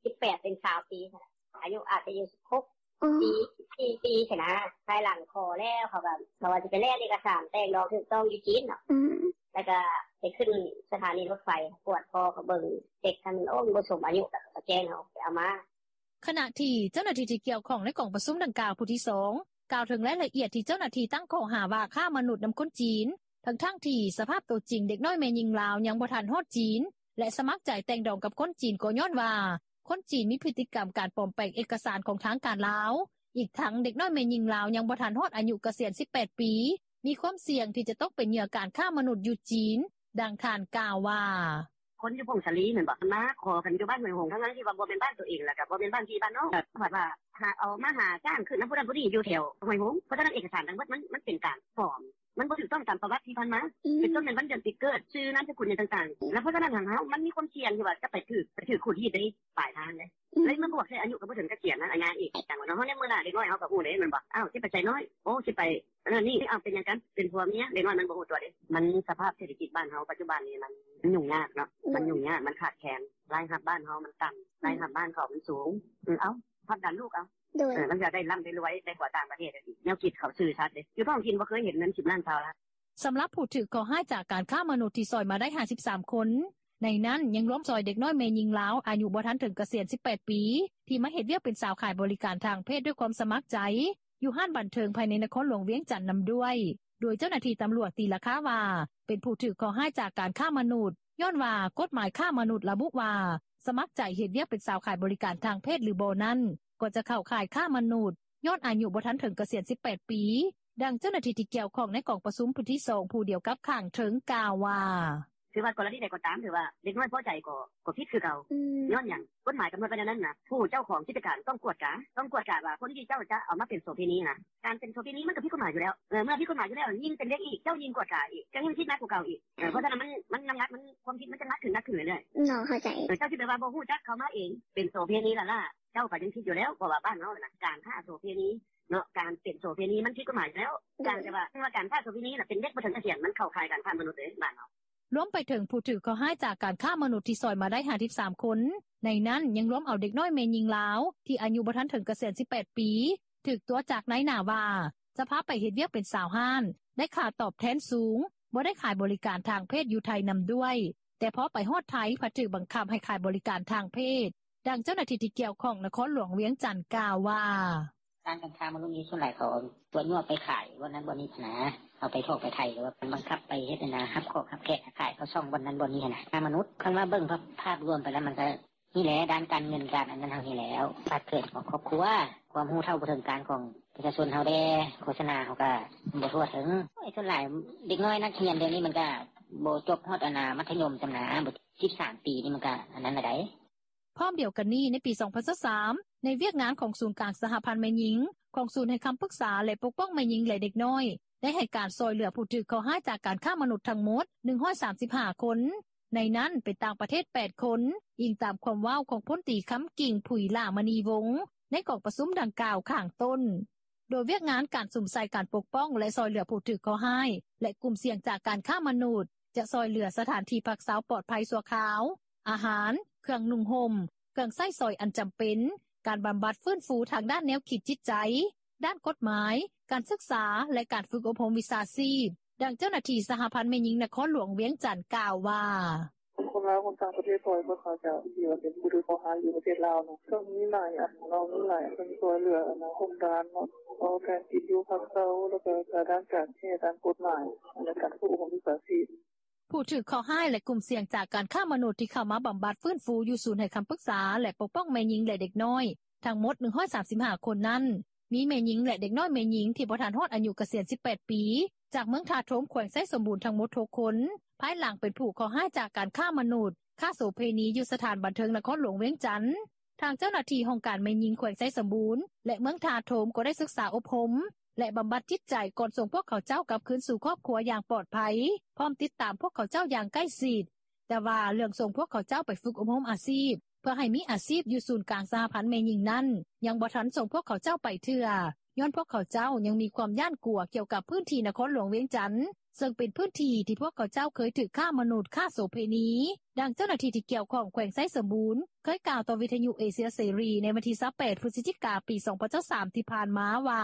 ສິບແປດເປັນຊາວປີ ອາຍຸອາດຈະຢູ່ສິບຫົກປີ ສິບສີ່ປີຊີ້ນະ ພາຍຫຼັງຂໍແລ້ວ ເຂົາກໍ ເຂົາວ່າຊິໄປແລ່ນເອກະສານແຕ່ງດອງຖືກຕ້ອງຢູ່ຈີນເນາະ ແລ້ວກໍໄປຂຶ້ນສະຖານີລົດໄຟ ກວດພໍກໍເບິ່ງເດັກຫັ້ນ ໂອ້ ມັນບໍ່ສົມອາຍຸ ແລ້ວກໍແຈ້ງເຮົາໄປເອົາມາ. ຂະນະທີ່ເຈົ້າໜ້າທີ່ທີ່ກ່ຽວຂ້ອງໃນກອງປະຊຸມດັ່ງກ່າວຜູ້ທີສອງ ກ່າວເຖິງລາຍລະອຽດທີ່ເຈົ້າໜ້າທີ່ຕັ້ງຂໍ້ຫາວ່າຄ້າມະນຸດນຳຄົນຈີນ ທັງໆທີ່ສະພາບໂຕຈິງເດັກນ້ອຍແມ່ຍິງລາວຍັງບໍ່ທັນຮອດຈີນ ແລະ ສະໝັກໃຈແຕ່ງດອງກັບຄົນຈີນ ກໍຍ້ອນວ່າຄົນຈີນມີພຶດຕິກຳການປອມແປງເອກະສານຂອງທາງການລາວ, ອີກທັງເດັກນ້ອຍແມ່ຍິງລາວຍັງບໍ່ທັນຮອດອາຍຸກະສຽນສິບແປດປີ ມີຄວາມສ່ຽງທີ່ຈະຕົກເປັນເຫຍື່ອການຄ້າມະນຸດຢູ່ຈີນ. ດັ່ງທ່ານກ່າວວ່າ: ຄົນຢູ່ຜົ້ງສາລີແມ່ນບໍ່ ເພິ່ນມາຂໍກັນຢູ່ບ້ານຫ້ວຍຫົງ ທັງໆທີ່ວ່າບໍ່ແມ່ນບ້ານໂຕເອງ ແລ້ວກໍບໍ່ແມ່ນບ້ານພີ່ບ້ານນ້ອງ ແລ້ວບັດວ່າຫາເອົາມາຫາຈ້າງຂຶ້ນນຳຜູ້ນັ້ນຜູ້ນີ້ຢູ່ແຖວຫ້ວຍຫົງ ເພາະສະນັ້ນເອກະສານທັງໝົດມັນ ມັນເປັນການປອມ ມັນບໍ່ຖືກຕ້ອງຕາມປະຫວັດທີ່ຜ່ານມາ ເປັນຕົ້ນແມ່ນວັນເດືອນປີເກີດ ຊື່ນາມສະກຸນຫຍັງຕ່າງໆ ແລ້ວເພາະສະນັ້ນຫັ້ນເຮົາມັນມີຄວາມສ່ຽງທີ່ວ່າຈະໄປຖືກ ໄປຖືກຂູດຮີດໃນປາຍທາງເດ້ ເລີຍມາບວກໃສ່ອາຍຸກໍບໍ່ເຖິງກະສຽນນະ ອາຍາອີກ ຈັ່ງວ່າເນາະ ເຮົາໃນມື້ໜ້າເດັກນ້ອຍເຮົາກໍຮູ້ເດ້ແມ່ນບໍ່ ອ້າວ ຊິໄປໃສນ້ອຍ ໂອ້ ຊິໄປ ອັນນັ້ນນີ້ ເອົາ ເປັນຫຍັງກັນ ເປັນຜົວເມຍ ເດັກນ້ອຍມັນບໍ່ຮູ້ຕົວເດ້ ມັນສະພາບເສດຖະກິດບ້ານເຮົາປັດຈຸບັນນີ້ ມັນຫຍຸ້ງຍາກເນາະ ມັນຫຍຸ້ງຍາກ ມັນຂາດແຄນ ລາຍຮັບບ້ານເຮົາມັນຕ່ຳ ລາຍຮັບບ້ານເຂົາມັນສູງ ເອີ ເອົາ ພັບດັນລູກເອົາ ເອີ ມັນຢາກໄດ້ລ່ຳໄດ້ລວຍ ໄດ້ຜົວຕ່າງປະເທດ ແນວຄິດເຂົາຊື່ຊັດເດ້ ຢູ່ທ້ອງຖິ່ນບໍ່ເຄີຍເຫັນເງິນສິບລ້ານຊາວລ້ານ. ສຳລັບຜູ້ຖືກເຄາະຮ້າຍຈາກການຄ້າມະນຸດທີ່ຊ່ອຍມາໄດ້ຫ້າສິບສາມຄົນ ໃນນັ້ນຍັງລວມຊ່ອຍເດັກນ້ອຍແມ່ຍິງລາວອາຍຸບໍ່ທັນເຖິງກະສຽນສິບແປດປີ ທີ່ມາເຮັດວຽກເປັນສາວຂາຍບໍລິການທາງເພດດ້ວຍຄວາມສະໝັກໃຈ ຢູ່ຮ້ານບັນເທີງພາຍໃນນະຄອນຫຼວງວຽງຈັນນຳດ້ວຍ ໂດຍເຈົ້າໜ້າທີ່ຕຳຫຼວດຕີລາຄາວ່າ ເປັນຜູ້ຖືກເຄາະຮ້າຍຈາກການຄ້າມະນຸດ ຍ້ອນວ່າກົດໝາຍຄ້າມະນຸດລະບຸວ່າ ສະໝັກໃຈເຮັດວຽກເປັນສາວຂາຍບໍລິການທາງເພດ ຫຼື ບໍ່ນັ້ນ ກໍຈະເຂົ້າຂ່າຍຄ້າມະນຸດ ຍ້ອນອາຍຸບໍ່ທັນເຖິງກະສຽນສິບແປດປີ. ດັ່ງເຈົ້າໜ້າທີ່ທີ່ກ່ຽວຂ້ອງໃນກອງປະຊຸມຜູ້ທີສອງ ຜູ້ດຽວກັບຂ້າງເທິງກ່າວວ່າ: ຖືວ່າກໍລະນີໃດກໍຕາມ ຖືວ່າເດັກນ້ອຍພໍໃຈກໍຜິດຄືເກົ່າ. ຍ້ອນຫຍັງ ກົດໝາຍກຳນົດໄວ້ແນວນັ້ນນ່າ ຜູ້ເຈົ້າຂອງກິດຈະການຕ້ອງກວດກາ ຕ້ອງກວດກາວ່າຄົນທີ່ເຈົ້າຈະເອົາມາເປັນໂສເພນີນ່າ ການເປັນໂສເພນີມັນກໍຜິດກົດໝາຍຢູ່ແລ້ວ ເມື່ອຜິດກົດໝາຍຢູ່ແລ້ວ ຍິ່ງເປັນເດັກອີກ ເຈົ້າຍິ່ງກວດກາອີກ ເຈົ້າຍິ່ງຜິດໜັກກວ່າເກົ່າອີກ ເພາະສະນັ້ນມັນ ມັນນ້ຳໜັກ ຄວາມຜິດມັນຈະໜັກຂຶ້ນ ໜັກຂຶ້ນເລື້ອຍໆ. ເຈົ້າຊິໄປວ່າບໍ່ຮູ້ຈັກເຂົາມາເອງ ເປັນໂສເພນີລ້າໆ ເຈົ້າກໍຍັງຜິດຢູ່ແລ້ວ ເພາະວ່າບ້ານເຮົາຫັ້ນນ່າ ການຄ້າໂສເພນີເນາະ ການເປັນໂສເພນີມັນຜິດກົດໝາຍຢູ່ແລ້ວ. ການທີ່ວ່າ ການຄ້າໂສເພນີແຫຼະ ເປັນເດັກບໍ່ເຖິງກະສຽນ ມັນເຂົ້າຂ່າຍການຄ້າມະນຸດເດ້ບ້ານເຮົາ. ລວມໄປເຖິງຜູ້ຖືກເຄາະຮ້າຍຈາກການຄ້າມະນຸດທີ່ຊ່ອຍມາໄດ້ຫ້າສິບສາມຄົນ ໃນນັ້ນຍັງລວມເອົາເດັກນ້ອຍແມ່ຍິງລາວ ທີ່ອາຍຸບໍ່ທັນເຖິງກະສຽນສິບແປດປີ ຖືກຕົວະຈາກນາຍໜ້າວ່າ ຈະພາໄປເຮັດວຽກເປັນສາວຮ້ານ ໄດ້ຄ່າຕອບແທນສູງ ບໍ່ໄດ້ຂາຍບໍລິການທາງເພດຢູ່ໄທນຳດ້ວຍ ແຕ່ພໍໄປຮອດໄທ ພັດຖືກບັງຄັບໃຫ້ຂາຍບໍລິການທາງເພດ. ດັ່ງເຈົ້າໜ້າທີ່ທີ່ກ່ຽວຂ້ອງນະຄອນຫຼວງວຽງຈັນກ່າວວ່າ: ການຄ້າມະນຸດນີ້ ສ່ວນຫຼາຍເຂົາຕົວະຍົວະໄປຂາຍບ່ອນນັ້ນບ່ອນນີ້ຫັ້ນນ່າ ເອົາໄປຖອກໄປໄຖ່ ຫຼືວ່າບັງຄັບໄປເຮັດຫັ້ນນ່າ ຮັບຂອກຮັບແຂກຂາຍເຂົ້າຊ່ອງບ່ອນນັ້ນບ່ອນນີ້ຫັ້ນນ່າ ຄ້າມະນຸດ. ຄັນວ່າເບິ່ງພາບລວມໄປແລ້ວ ມັນກະນີ້ແຫຼະ ດ້ານການເງິນການອັນນັ້ນເຮົານີ້ແລ້ວ ປາກເກີດຂອງຄອບຄົວ ຄວາມຮູ້ເທົ່າບໍ່ເຖິງການຂອງປະຊາຊົນເຮົາແດ່ ໂຄສະນາເຮົາກະບໍ່ທົ່ວເຖິງ. ໂອ້ຍ ສ່ວນຫຼາຍເດັກນ້ອຍນັກຮຽນດຽວນີ້ ມັນກະບໍ່ຈົບຮອດອັນນ່າມັດທະຍົມຊ້ຳນ່າ ສິບສາມປີນີ້ ມັນກະອັນນັ້ນລະໃດ. ພ້ອມດຽວກັນນີ້ ໃນປີສອງພັນຊາວສາມ ໃນວຽກງານຂອງສູນກາງສະຫະພັນແມ່ຍິງ ຂອງສູນໃຫ້ຄຳປຶກສາ ແລະ ປົກປ້ອງແມ່ຍິງ ແລະ ເດັກນ້ອຍ ໄດ້ໃຫ້ການຊ່ອຍເຫຼືອຜູ້ຖືກເຄາະຮ້າຍຈາກການຄ້າມະນຸດທັງໝົດ ໜຶ່ງຮ້ອຍສາມສິບຫ້າຄົນ ໃນນັ້ນເປັນຕ່າງປະເທດແປດຄົນ ອີງຕາມຄວາມເວົ້າຂອງພົນຕີ ຄຳກິ່ງ ຜຸຍຫຼ້າມະນີວົງ ໃນກອງປະຊຸມດັ່ງກ່າວຂ້າງຕົ້ນ. ໂດຍວຽກງານການສຸມໃສ່ການປົກປ້ອງ ແລະ ຊ່ອຍເຫຼືອຜູ້ຖືກເຄາະຮ້າຍ ແລະ ກຸ່ມສ່ຽງຈາກການຄ້າມະນຸດ ຈະຊ່ອຍເຫຼືອສະຖານທີ່ພັກເຊົາປອດໄພຊົ່ວຄາວ, ອາຫານ, ເຄື່ອງນຸ່ງຫົ່ມ, ເຄື່ອງໃຊ້ສອຍອັນຈຳເປັນ, ການບຳບັດຟື້ນຟູທາງດ້ານແນວຄິດຈິດໃຈ, ດ້ານກົດໝາຍ, ການສຶກສາ ແລະ ການຝຶກອົບຮົມວິຊາຊີບ. ດັ່ງເຈົ້າໜ້າທີ່ສະຫະພັນແມ່ຍິງນະຄອນຫຼວງວຽງຈັນກ່າວວ່າ: ຄົນລາວຄົນຕ່າງປະເທດ ຊ່ອຍພວກເຂົາເຈົ້າ ທີ່ວ່າເປັນຜູ້ຖືກເຄາະຮ້າຍຢູ່ປະເທດລາວເນາະ ກໍມີຫຼາຍອັນເນາະ ມີຫຼາຍອັນຊ່ອຍເຫຼືອ ອັນນ່າ ໂຮງການເນາະ ເອົາແທນກິນຢູ່ພັກເຊົາ ແລ້ວກໍການດ້ານການແພດ ດ້ານກົດໝາຍ ແລະ ການຝຶກອົບຮົມວິຊາຊີບ. ຜູ້ຖືກເຄາະຮ້າຍ ແລະ ກຸ່ມສ່ຽງຈາກການຄ້າມະນຸດ ທີ່ເຂົ້າມາບຳບັດຟື້ນຟູຢູ່ສູນໃຫ້ຄຳປຶກສາ ແລະ ປົກປ້ອງແມ່ຍິງ ແລະ ເດັກນ້ອຍ ທັງໝົດໜຶ່ງຮ້ອຍສາມສິບຫ້າຄົນນັ້ນ ມີແມ່ຍິງ ແລະ ເດັກນ້ອຍແມ່ຍິງທີ່ບໍ່ທັນຮອດອາຍຸກະສຽນສິບແປດປີ ຈາກເມືອງທ່າໂທມ ແຂວງໄຊສົມບູນ ທັງໝົດຫົກຄົນ. ພາຍຫຼັງເປັນຜູ້ເຄາະຮ້າຍຈາກການຄ້າມະນຸດ, ຄ້າໂສເພນີ ຢູ່ສະຖານບັນເທີງນະຄອນຫຼວງວຽງຈັນ. ທາງເຈົ້າໜ້າທີ່ຫ້ອງການແມ່ຍິງແຂວງໄຊສົມບູນ ແລະ ເມືອງທ່າໂທມ ກໍໄດ້ສຶກສາອົບຮົມ ແລະ ບຳບັດຈິດໃຈ ກ່ອນສົ່ງພວກເຂົາເຈົ້າກັບຄືນສູ່ຄອບຄົວຢ່າງປອດໄພ, ພ້ອມຕິດຕາມພວກເຂົາເຈົ້າຢ່າງໃກ້ຊິດ. ແຕ່ວ່າເລື່ອງສົ່ງພວກເຂົາເຈົ້າໄປຝຶກອົບຮົມອາຊີບ ເພື່ອໃຫ້ມີອາຊີບຢູ່ສູນກາງສະຫະພັນແມ່ຍິງນັ້ນ ຍັງບໍ່ທັນສົ່ງພວກເຂົາເຈົ້າໄປເທື່ອ ຍ້ອນພວກເຂົາເຈົ້າຍັງມີຄວາມຢ້ານກົວກ່ຽວກັບພື້ນທີ່ນະຄອນຫຼວງວຽງຈັນ ເຊິ່ງເປັນພື້ນທີ່ທີ່ພວກເຂົາເຈົ້າເຄີຍຖືກຄ້າມະນຸດ, ຄ້າໂສເພນີ. ດັ່ງເຈົ້າໜ້າທີ່ທີ່ກ່ຽວຂ້ອງແຂວງໄຊສົມບູນ ເຄີຍກ່າວຕໍ່ວິທະຍຸເອເຊຍເສລີ ໃນວັນທີຊາວແປດ ພຶສຈິກາ ປີສອງພັນຊາວສາມ ທີ່ຜ່ານມາວ່າ: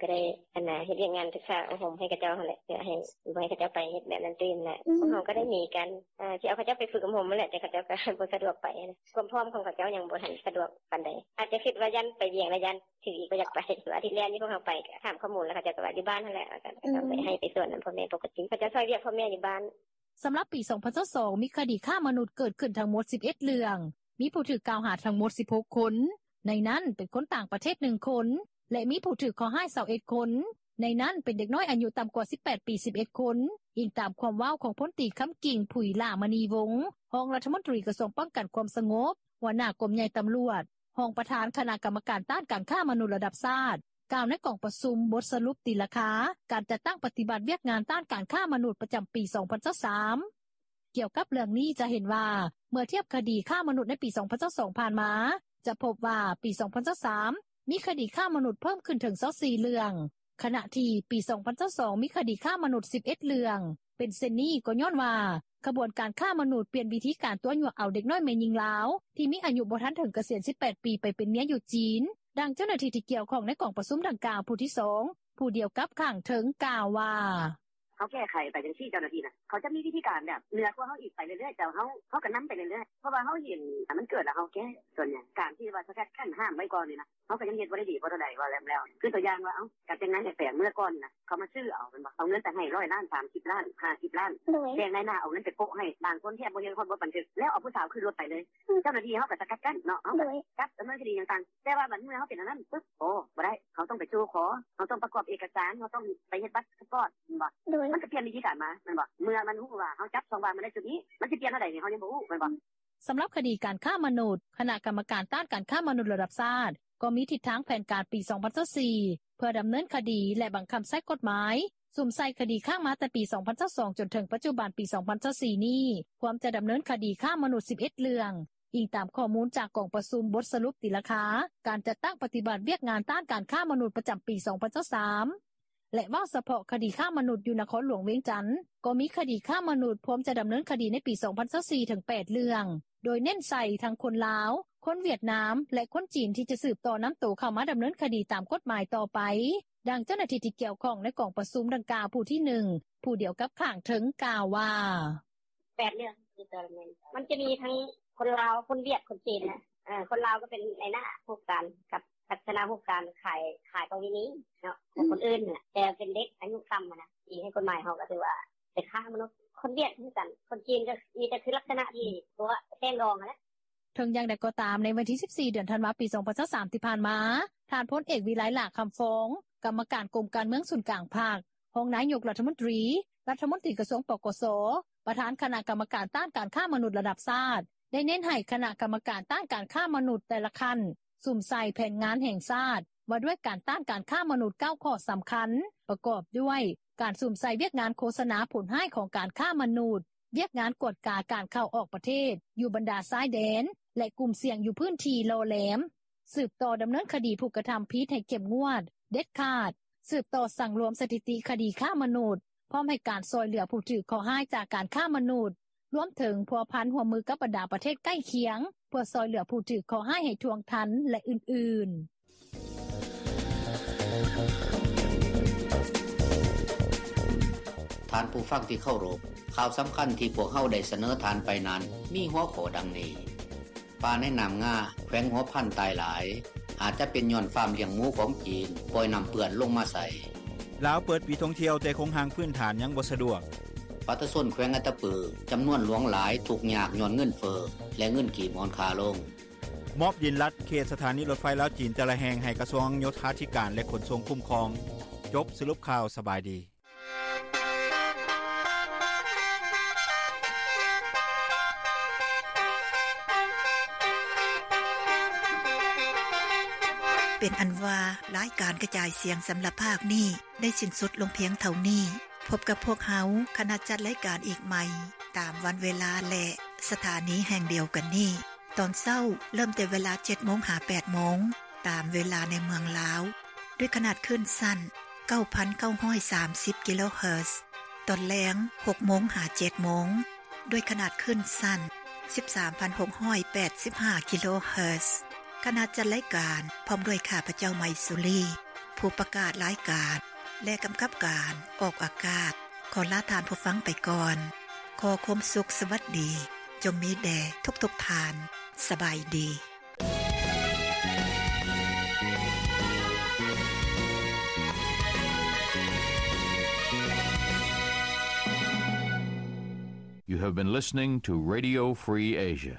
ກໍໄດ້ ອັນນ່າ ເຮັດວຽກງານສຶກສາອົບຮົມໃຫ້ເຂົາເຈົ້າຫັ້ນແຫຼະ ເພື່ອໃຫ້ ບໍ່ໃຫ້ເຂົາເຈົ້າໄປເຮັດແບບນັ້ນຕື່ມນະ. ພວກເຮົາກໍໄດ້ມີການ ອ່າ ຊິເອົາເຂົາເຈົ້າໄປຝຶກອົບຮົມຫັ້ນແຫຼະ ແຕ່ເຂົາເຈົ້າກໍບໍ່ສະດວກໄປນະ ຄວາມພ້ອມຂອງເຂົາເຈົ້າຍັງບໍ່ທັນສະດວກປານໃດ ອາດຈະຄິດວ່າຢ້ານໄປວຽງ ແລ້ວຢ້ານຖືກອີກ ບໍ່ຢາກໄປ. ອາທິດແລ້ວນີ້ພວກເຮົາໄປ ກໍຖາມຂໍ້ມູນ ແລ້ວເຂົາເຈົ້າກໍວ່າຢູ່ບ້ານຫັ້ນແຫຼະ ວ່າກໍຕ້ອງໄປໃຫ້ໄປສວນນຳພໍ່ແມ່ປົກກະຕິ ເຂົາເຈົ້າຊ່ອຍວຽກພໍ່ແມ່ຢູ່ບ້ານ. ສຳລັບປີສອງພັນຊາວສອງ ມີຄະດີຄ້າມະນຸດເກີດຂຶ້ນທັງໝົດສິບເອັດເລື່ອງ, ມີຜູ້ຖືກກ່າວຫາທັງໝົດສິບຫົກຄົນ, ໃນນັ້ນເປັນຄົນຕ່າງປະເທດໜຶ່ງຄົນ ແລະ ມີຜູ້ຖືກເຄາະຮ້າຍຊາວເອັດຄົນ, ໃນນັ້ນເປັນເດັກນ້ອຍອາຍຸຕ່ຳກວ່າສິບແປດປີສິບເອັດຄົນ, ອີງຕາມຄວາມເວົ້າຂອງພົນຕີ ຄຳກິ່ງ ຜຸຍຫຼ້າມະນີວົງ ຮອງລັດຖະມົນຕີກະຊວງປ້ອງກັນຄວາມສະຫງົບ, ຫົວໜ້າກົມໃຫຍ່ຕຳຫຼວດ, ຮອງປະທານຄະນະກຳມະການຕ້ານການຄ້າມະນຸດລະດັບຊາດ ກ່າວໃນກອງປະຊຸມບົດສະຫຼຸບຕີລາຄາການຈັດຕັ້ງປະຕິບັດວຽກງານຕ້ານການຄ້າມະນຸດປະຈຳປີສອງພັນຊາວສາມ. ກ່ຽວກັບເລື່ອງນີ້ຈະເຫັນວ່າ ເມື່ອທຽບຄະດີຄ້າມະນຸດໃນປີສອງພັນຊາວສອງຜ່ານມາ ຈະພົບວ່າປີສອງພັນຊາວສາມ ມີຄະດີຄ້າມະນຸດເພີ່ມຂຶ້ນເຖິງຊາວສີ່ເລື່ອງ, ຂະນະທີ່ປີສອງພັນຊາວສອງ ມີຄະດີຄ້າມະນຸດສິບເອັດເລື່ອງ. ເປັນເຊັ່ນນີ້ກໍຍ້ອນວ່າ ຂະບວນການຄ້າມະນຸດປ່ຽນວິທີການຕົວະຍົວະເອົາເດັກນ້ອຍແມ່ຍິງລາວ ທີ່ມີອາຍຸບໍ່ທັນເຖິງກະສຽນສິບແປດປີໄປເປັນເມຍຢູ່ຈີນ. ດັ່ງເຈົ້າໜ້າທີ່ທີ່ກ່ຽວຂ້ອງໃນກອງປະຊຸມດັ່ງກ່າວຜູ້ທີສອງ ຜູ້ດຽວກັບຂ້າງເທິງກ່າວວ່າ: ເຮົາແກ້ໄຂໄປຈັ່ງຊີ້ ເຈົ້າໜ້າທີ່ນະ ເຂົາຈະມີວິທີການແບບເໜືອກວ່າເຮົາອີກໄປເລື້ອຍໆ ແຕ່ເຮົາ ເຮົາກໍນຳໄປເລື້ອຍໆ ເພາະວ່າເຮົາເຫັນມັນເກີດແລ້ວເຮົາແກ້. ສ່ວນໃຫຍ່ການທີ່ວ່າສະກັດກັ້ນຫ້າມໄວ້ກ່ອນນີ້ນະ ເຮົາກໍຍັງເຮັດບໍ່ໄດ້ດີພໍເທົ່າໃດ ວ່າແລ້ວ ຄືຕົວຢ່າງວ່າ ເອົ້າ ການຈັດງານແຫ່ແປງເມື່ອກ່ອນນະ ເຂົາມາຊື້ເອົາແມ່ນບໍ່ ເອົາເງິນໄປໃຫ້ຮ້ອຍລ້ານ ສາມສິບລ້ານ ຫ້າສິບລ້ານ ໂດຍ ແບ່ງນາຍໜ້າເອົາເງິນໄປໂປະໃຫ້ ບາງຄົນແທບບໍ່ຍັງຮອດບົດບັນທຶກ ແລ້ວເອົາຜູ້ສາວຂຶ້ນລົດໄປເລີຍ ເຈົ້າໜ້າທີ່ເຮົາກໍສະກັດກັ້ນເນາະ ເຮົາກໍຈັບດຳເນີນຄະດີຫຍັງຕ່າງ ແຕ່ວ່າບັດເມື່ອເຮົາເປັນອັນນັ້ນປຶບ ໂອ້ ບໍ່ໄດ້ ເຮົາຕ້ອງໄປສູ່ຂໍ ເຮົາຕ້ອງປະກອບເອກະສານ ເຮົາຕ້ອງໄປເຮັດບັດພາສປອດແມ່ນບໍ່ ໂດຍ ມັນກໍປ່ຽນວິທີການມາແມ່ນບໍ່ ເມື່ອມັນຮູ້ວ່າເຮົາຈັບຊ່ອງວ່າງມາໄດ້ຈຸດນີ້ ມັນຊິປ່ຽນເທົ່າໃດນີ້ ເຮົາຍັງບໍ່ຮູ້ແມ່ນບໍ່. ສຳລັບຄະດີການຄ້າມະນຸດ ຄະນະກຳມະການຕ້ານການຄ້າມະນຸດລະດັບຊາດ ກໍມີທິດທາງແຜນການປີສອງພັນຊາວສີ່ ເພື່ອດຳເນີນຄະດີ ແລະ ບັງຄັບໃຊ້ກົດໝາຍ ສຸມໃສ່ຄະດີຄ້າງມາແຕ່ປີສອງພັນຊາວສອງ ຈົນເຖິງປັດຈຸບັນປີສອງພັນຊາວສີ່ນີ້ ພວມຈະດຳເນີນຄະດີຄ້າມະນຸດສິບເອັດເລື່ອງ, ອີງຕາມຂໍ້ມູນຈາກກອງປະຊຸມບົດສະຫຼຸບຕີລາຄາ ການຈັດຕັ້ງປະຕິບັດວຽກງານຕ້ານການຄ້າມະນຸດປະຈຳປີສອງພັນຊາວສາມ ແລະ ເວົ້າສະເພາະຄະດີຄ້າມະນຸດຢູ່ນະຄອນຫຼວງວຽງຈັນ ກໍມີຄະດີຄ້າມະນຸດພວມຈະດຳເນີນຄະດີໃນປີສອງພັນຊາວສີ່ເຖິງແປດເລື່ອງ ໂດຍເນັ້ນໃສ່ທັງຄົນລາວ, ຄົນຫວຽດນາມ ແລະ ຄົນຈີນທີ່ຈະສືບຕໍ່ນຳໂຕເຂົ້າມາດຳເນີນຄະດີຕາມກົດໝາຍຕໍ່ໄປ. ດັ່ງເຈົ້າໜ້າທີ່ທີ່ກ່ຽວຂ້ອງໃນກອງປະຊຸມດັ່ງກ່າວຜູ້ທີໜຶ່ງ ຜູ້ດຽວກັບຂ້າງເທິງກ່າວວ່າ ແປດເລື່ອງ ມັນຈະມີທັງຄົນລາວ ຄົນຫວຽດ ຄົນຈີນນະ ເອີ ຄົນລາວກໍເປັນນາຍໜ້າຮູບການກັບລັກສະນະຮູບການຂາຍ ຂາຍປະເວນີເນາະ ຂອງຄົນອື່ນນະ ແຕ່ເປັນເດັກອາຍຸຕ່ຳນະ ທີ່ໃນກົດໝາຍເຮົາກໍຖືວ່າເປັນຄ້າມະນຸດ ຄົນຫວຽດຄືກັນ ຄົນຈີນກໍມີແຕ່ຄືລັກສະນະທີ່ຕົວະແຕ່ງດອງຫັ້ນແຫຼະ. ເຖິງຢ່າງໃດກໍຕາມ ໃນວັນທີສິບສີ່ ເດືອນທັນວາ ປີສອງພັນຊາວສາມ ທີ່ຜ່ານມາ ທ່ານພົນເອກ ວິໄລ ຫຼ້າຄຳຟອງ ກຳມະການກົມການເມືອງສູນກາງພັກ, ຮອງນາຍົກລັດຖະມົນຕີ, ລັດຖະມົນຕີກະຊວງ ປກສ, ປະທານຄະນະກຳມະການຕ້ານການຄ້າມະນຸດລະດັບຊາດ ໄດ້ເນັ້ນໃຫ້ຄະນະກຳມະການຕ້ານການຄ້າມະນຸດແຕ່ລະຂັ້ນ ສຸມໃສ່ແຜນງານແຫ່ງຊາດວ່າດ້ວຍການຕ້ານການຄ້າມະນຸດເກົ້າຂໍ້ສຳຄັນ ປະກອບດ້ວຍ ການສຸມໃສ່ວຽກງານໂຄສະນາຜົນຮ້າຍຂອງການຄ້າມະນຸດ, ວຽກງານກວດກາການເຂົ້າອອກປະເທດຢູ່ບັນດາຊາຍແດນ ແລະ ກຸ່ມສ່ຽງຢູ່ພື້ນທີ່ຫຼໍ່ແຫຼມ, ສືບຕໍ່ດຳເນີນຄະດີຜູ້ກະທຳຜິດໃຫ້ເຂັ້ມງວດ, ເດັດຂາດ, ສືບຕໍ່ສັງລວມສະຖິຕິຄະດີຄ້າມະນຸດ, ພ້ອມໃຫ້ການຊ່ອຍເຫຼືອຜູ້ຖືກເຄາະຮ້າຍຈາກການຄ້າມະນຸດ, ລວມເຖິງພົວພັນຮ່ວມມືກັບບັນດາປະເທດໃກ້ຄຽງ ເພື່ອຊ່ອຍເຫຼືອຜູ້ຖືກເຄາະຮ້າຍໃຫ້ທ່ວງທັນ ແລະ ອື່ນໆ. ທ່ານຜູ້ຟັງທີ່ເຄົາລົບ, ຂ່າວສຳຄັນທີ່ພວກເຮົາໄດ້ສະເໜີທ່ານໄປນັ້ນ ມີຫົວຂໍ້ດັ່ງນີ້: ປາໃນນ້ຳງາ ແຂວງຫົວພັນ ຕາຍຫຼາຍ ອາດຈະເປັນຍ້ອນຟາມລ້ຽງໝູຂອງຈີນປ່ອຍນ້ຳເປື້ອນລົງມາໃສ່. ລາວເປີດປີທ່ອງທ່ຽວ ແຕ່ໂຄງຮ່າງພື້ນຖານຍັງບໍ່ສະດວກ. ປະຊາຊົນແຂວງອັດຕະປື ຈຳນວນຫຼວງຫຼາຍທຸກຍາກຍ້ອນເງິນເຟີ້ ແລະ ເງິນກີບອ່ອນຄ່າລົງ. ມອບດິນລັດເຂດສະຖານີລົດໄຟລາວ-ຈີນແຕ່ລະແຫ່ງໃຫ້ກະຊວງໂຍທາທິການ ແລະ ຂົນສົ່ງຄຸ້ມຄອງ. ຈົບສະຫຼຸບຂ່າວ. ສະບາຍດີ. ເປັນອັນວ່າ ລາຍການກະຈາຍສຽງສຳລັບພາກນີ້ ໄດ້ສິ້ນສຸດລົງພຽງເທົ່ານີ້. ພົບກັບພວກເຮົາ ຄະນະຈັດລາຍການອີກໃໝ່ ຕາມວັນເວລາ ແລະ ສະຖານີແຫ່ງດຽວກັນນີ້. ຕອນເຊົ້າເລີ່ມແຕ່ເວລາເຈັດໂມງຫາແປດໂມງ ຕາມເວລາໃນເມືອງລາວ ດ້ວຍຂະໜາດຄື້ນສັ້ນເກົ້າພັນເກົ້າຮ້ອຍສາມສິບກິໂລເຮີດ. ຕອນແລງຫົກໂມງຫາເຈັດໂມງ ດ້ວຍຂະໜາດຄື້ນສັ້ນສິບສາມພັນຫົກຮ້ອຍແປດສິບຫ້າກິໂລເຮີດ. ຄະນະຈັດລາຍການພ້ອມດ້ວຍຂ້າພະເຈົ້າ ໄມສຸລີ ຜູ້ປະກາດລາຍການ ແລະ ກຳກັບການອອກອາກາດ ຂໍລາທ່ານຜູ້ຟັງໄປກ່ອນ. ຂໍຄວາມສຸກສະຫວັດດີ ຈົ່ງມີແດ່ທຸກໆທ່ານ. ສະບາຍດີ. You have been listening to Radio Free Asia.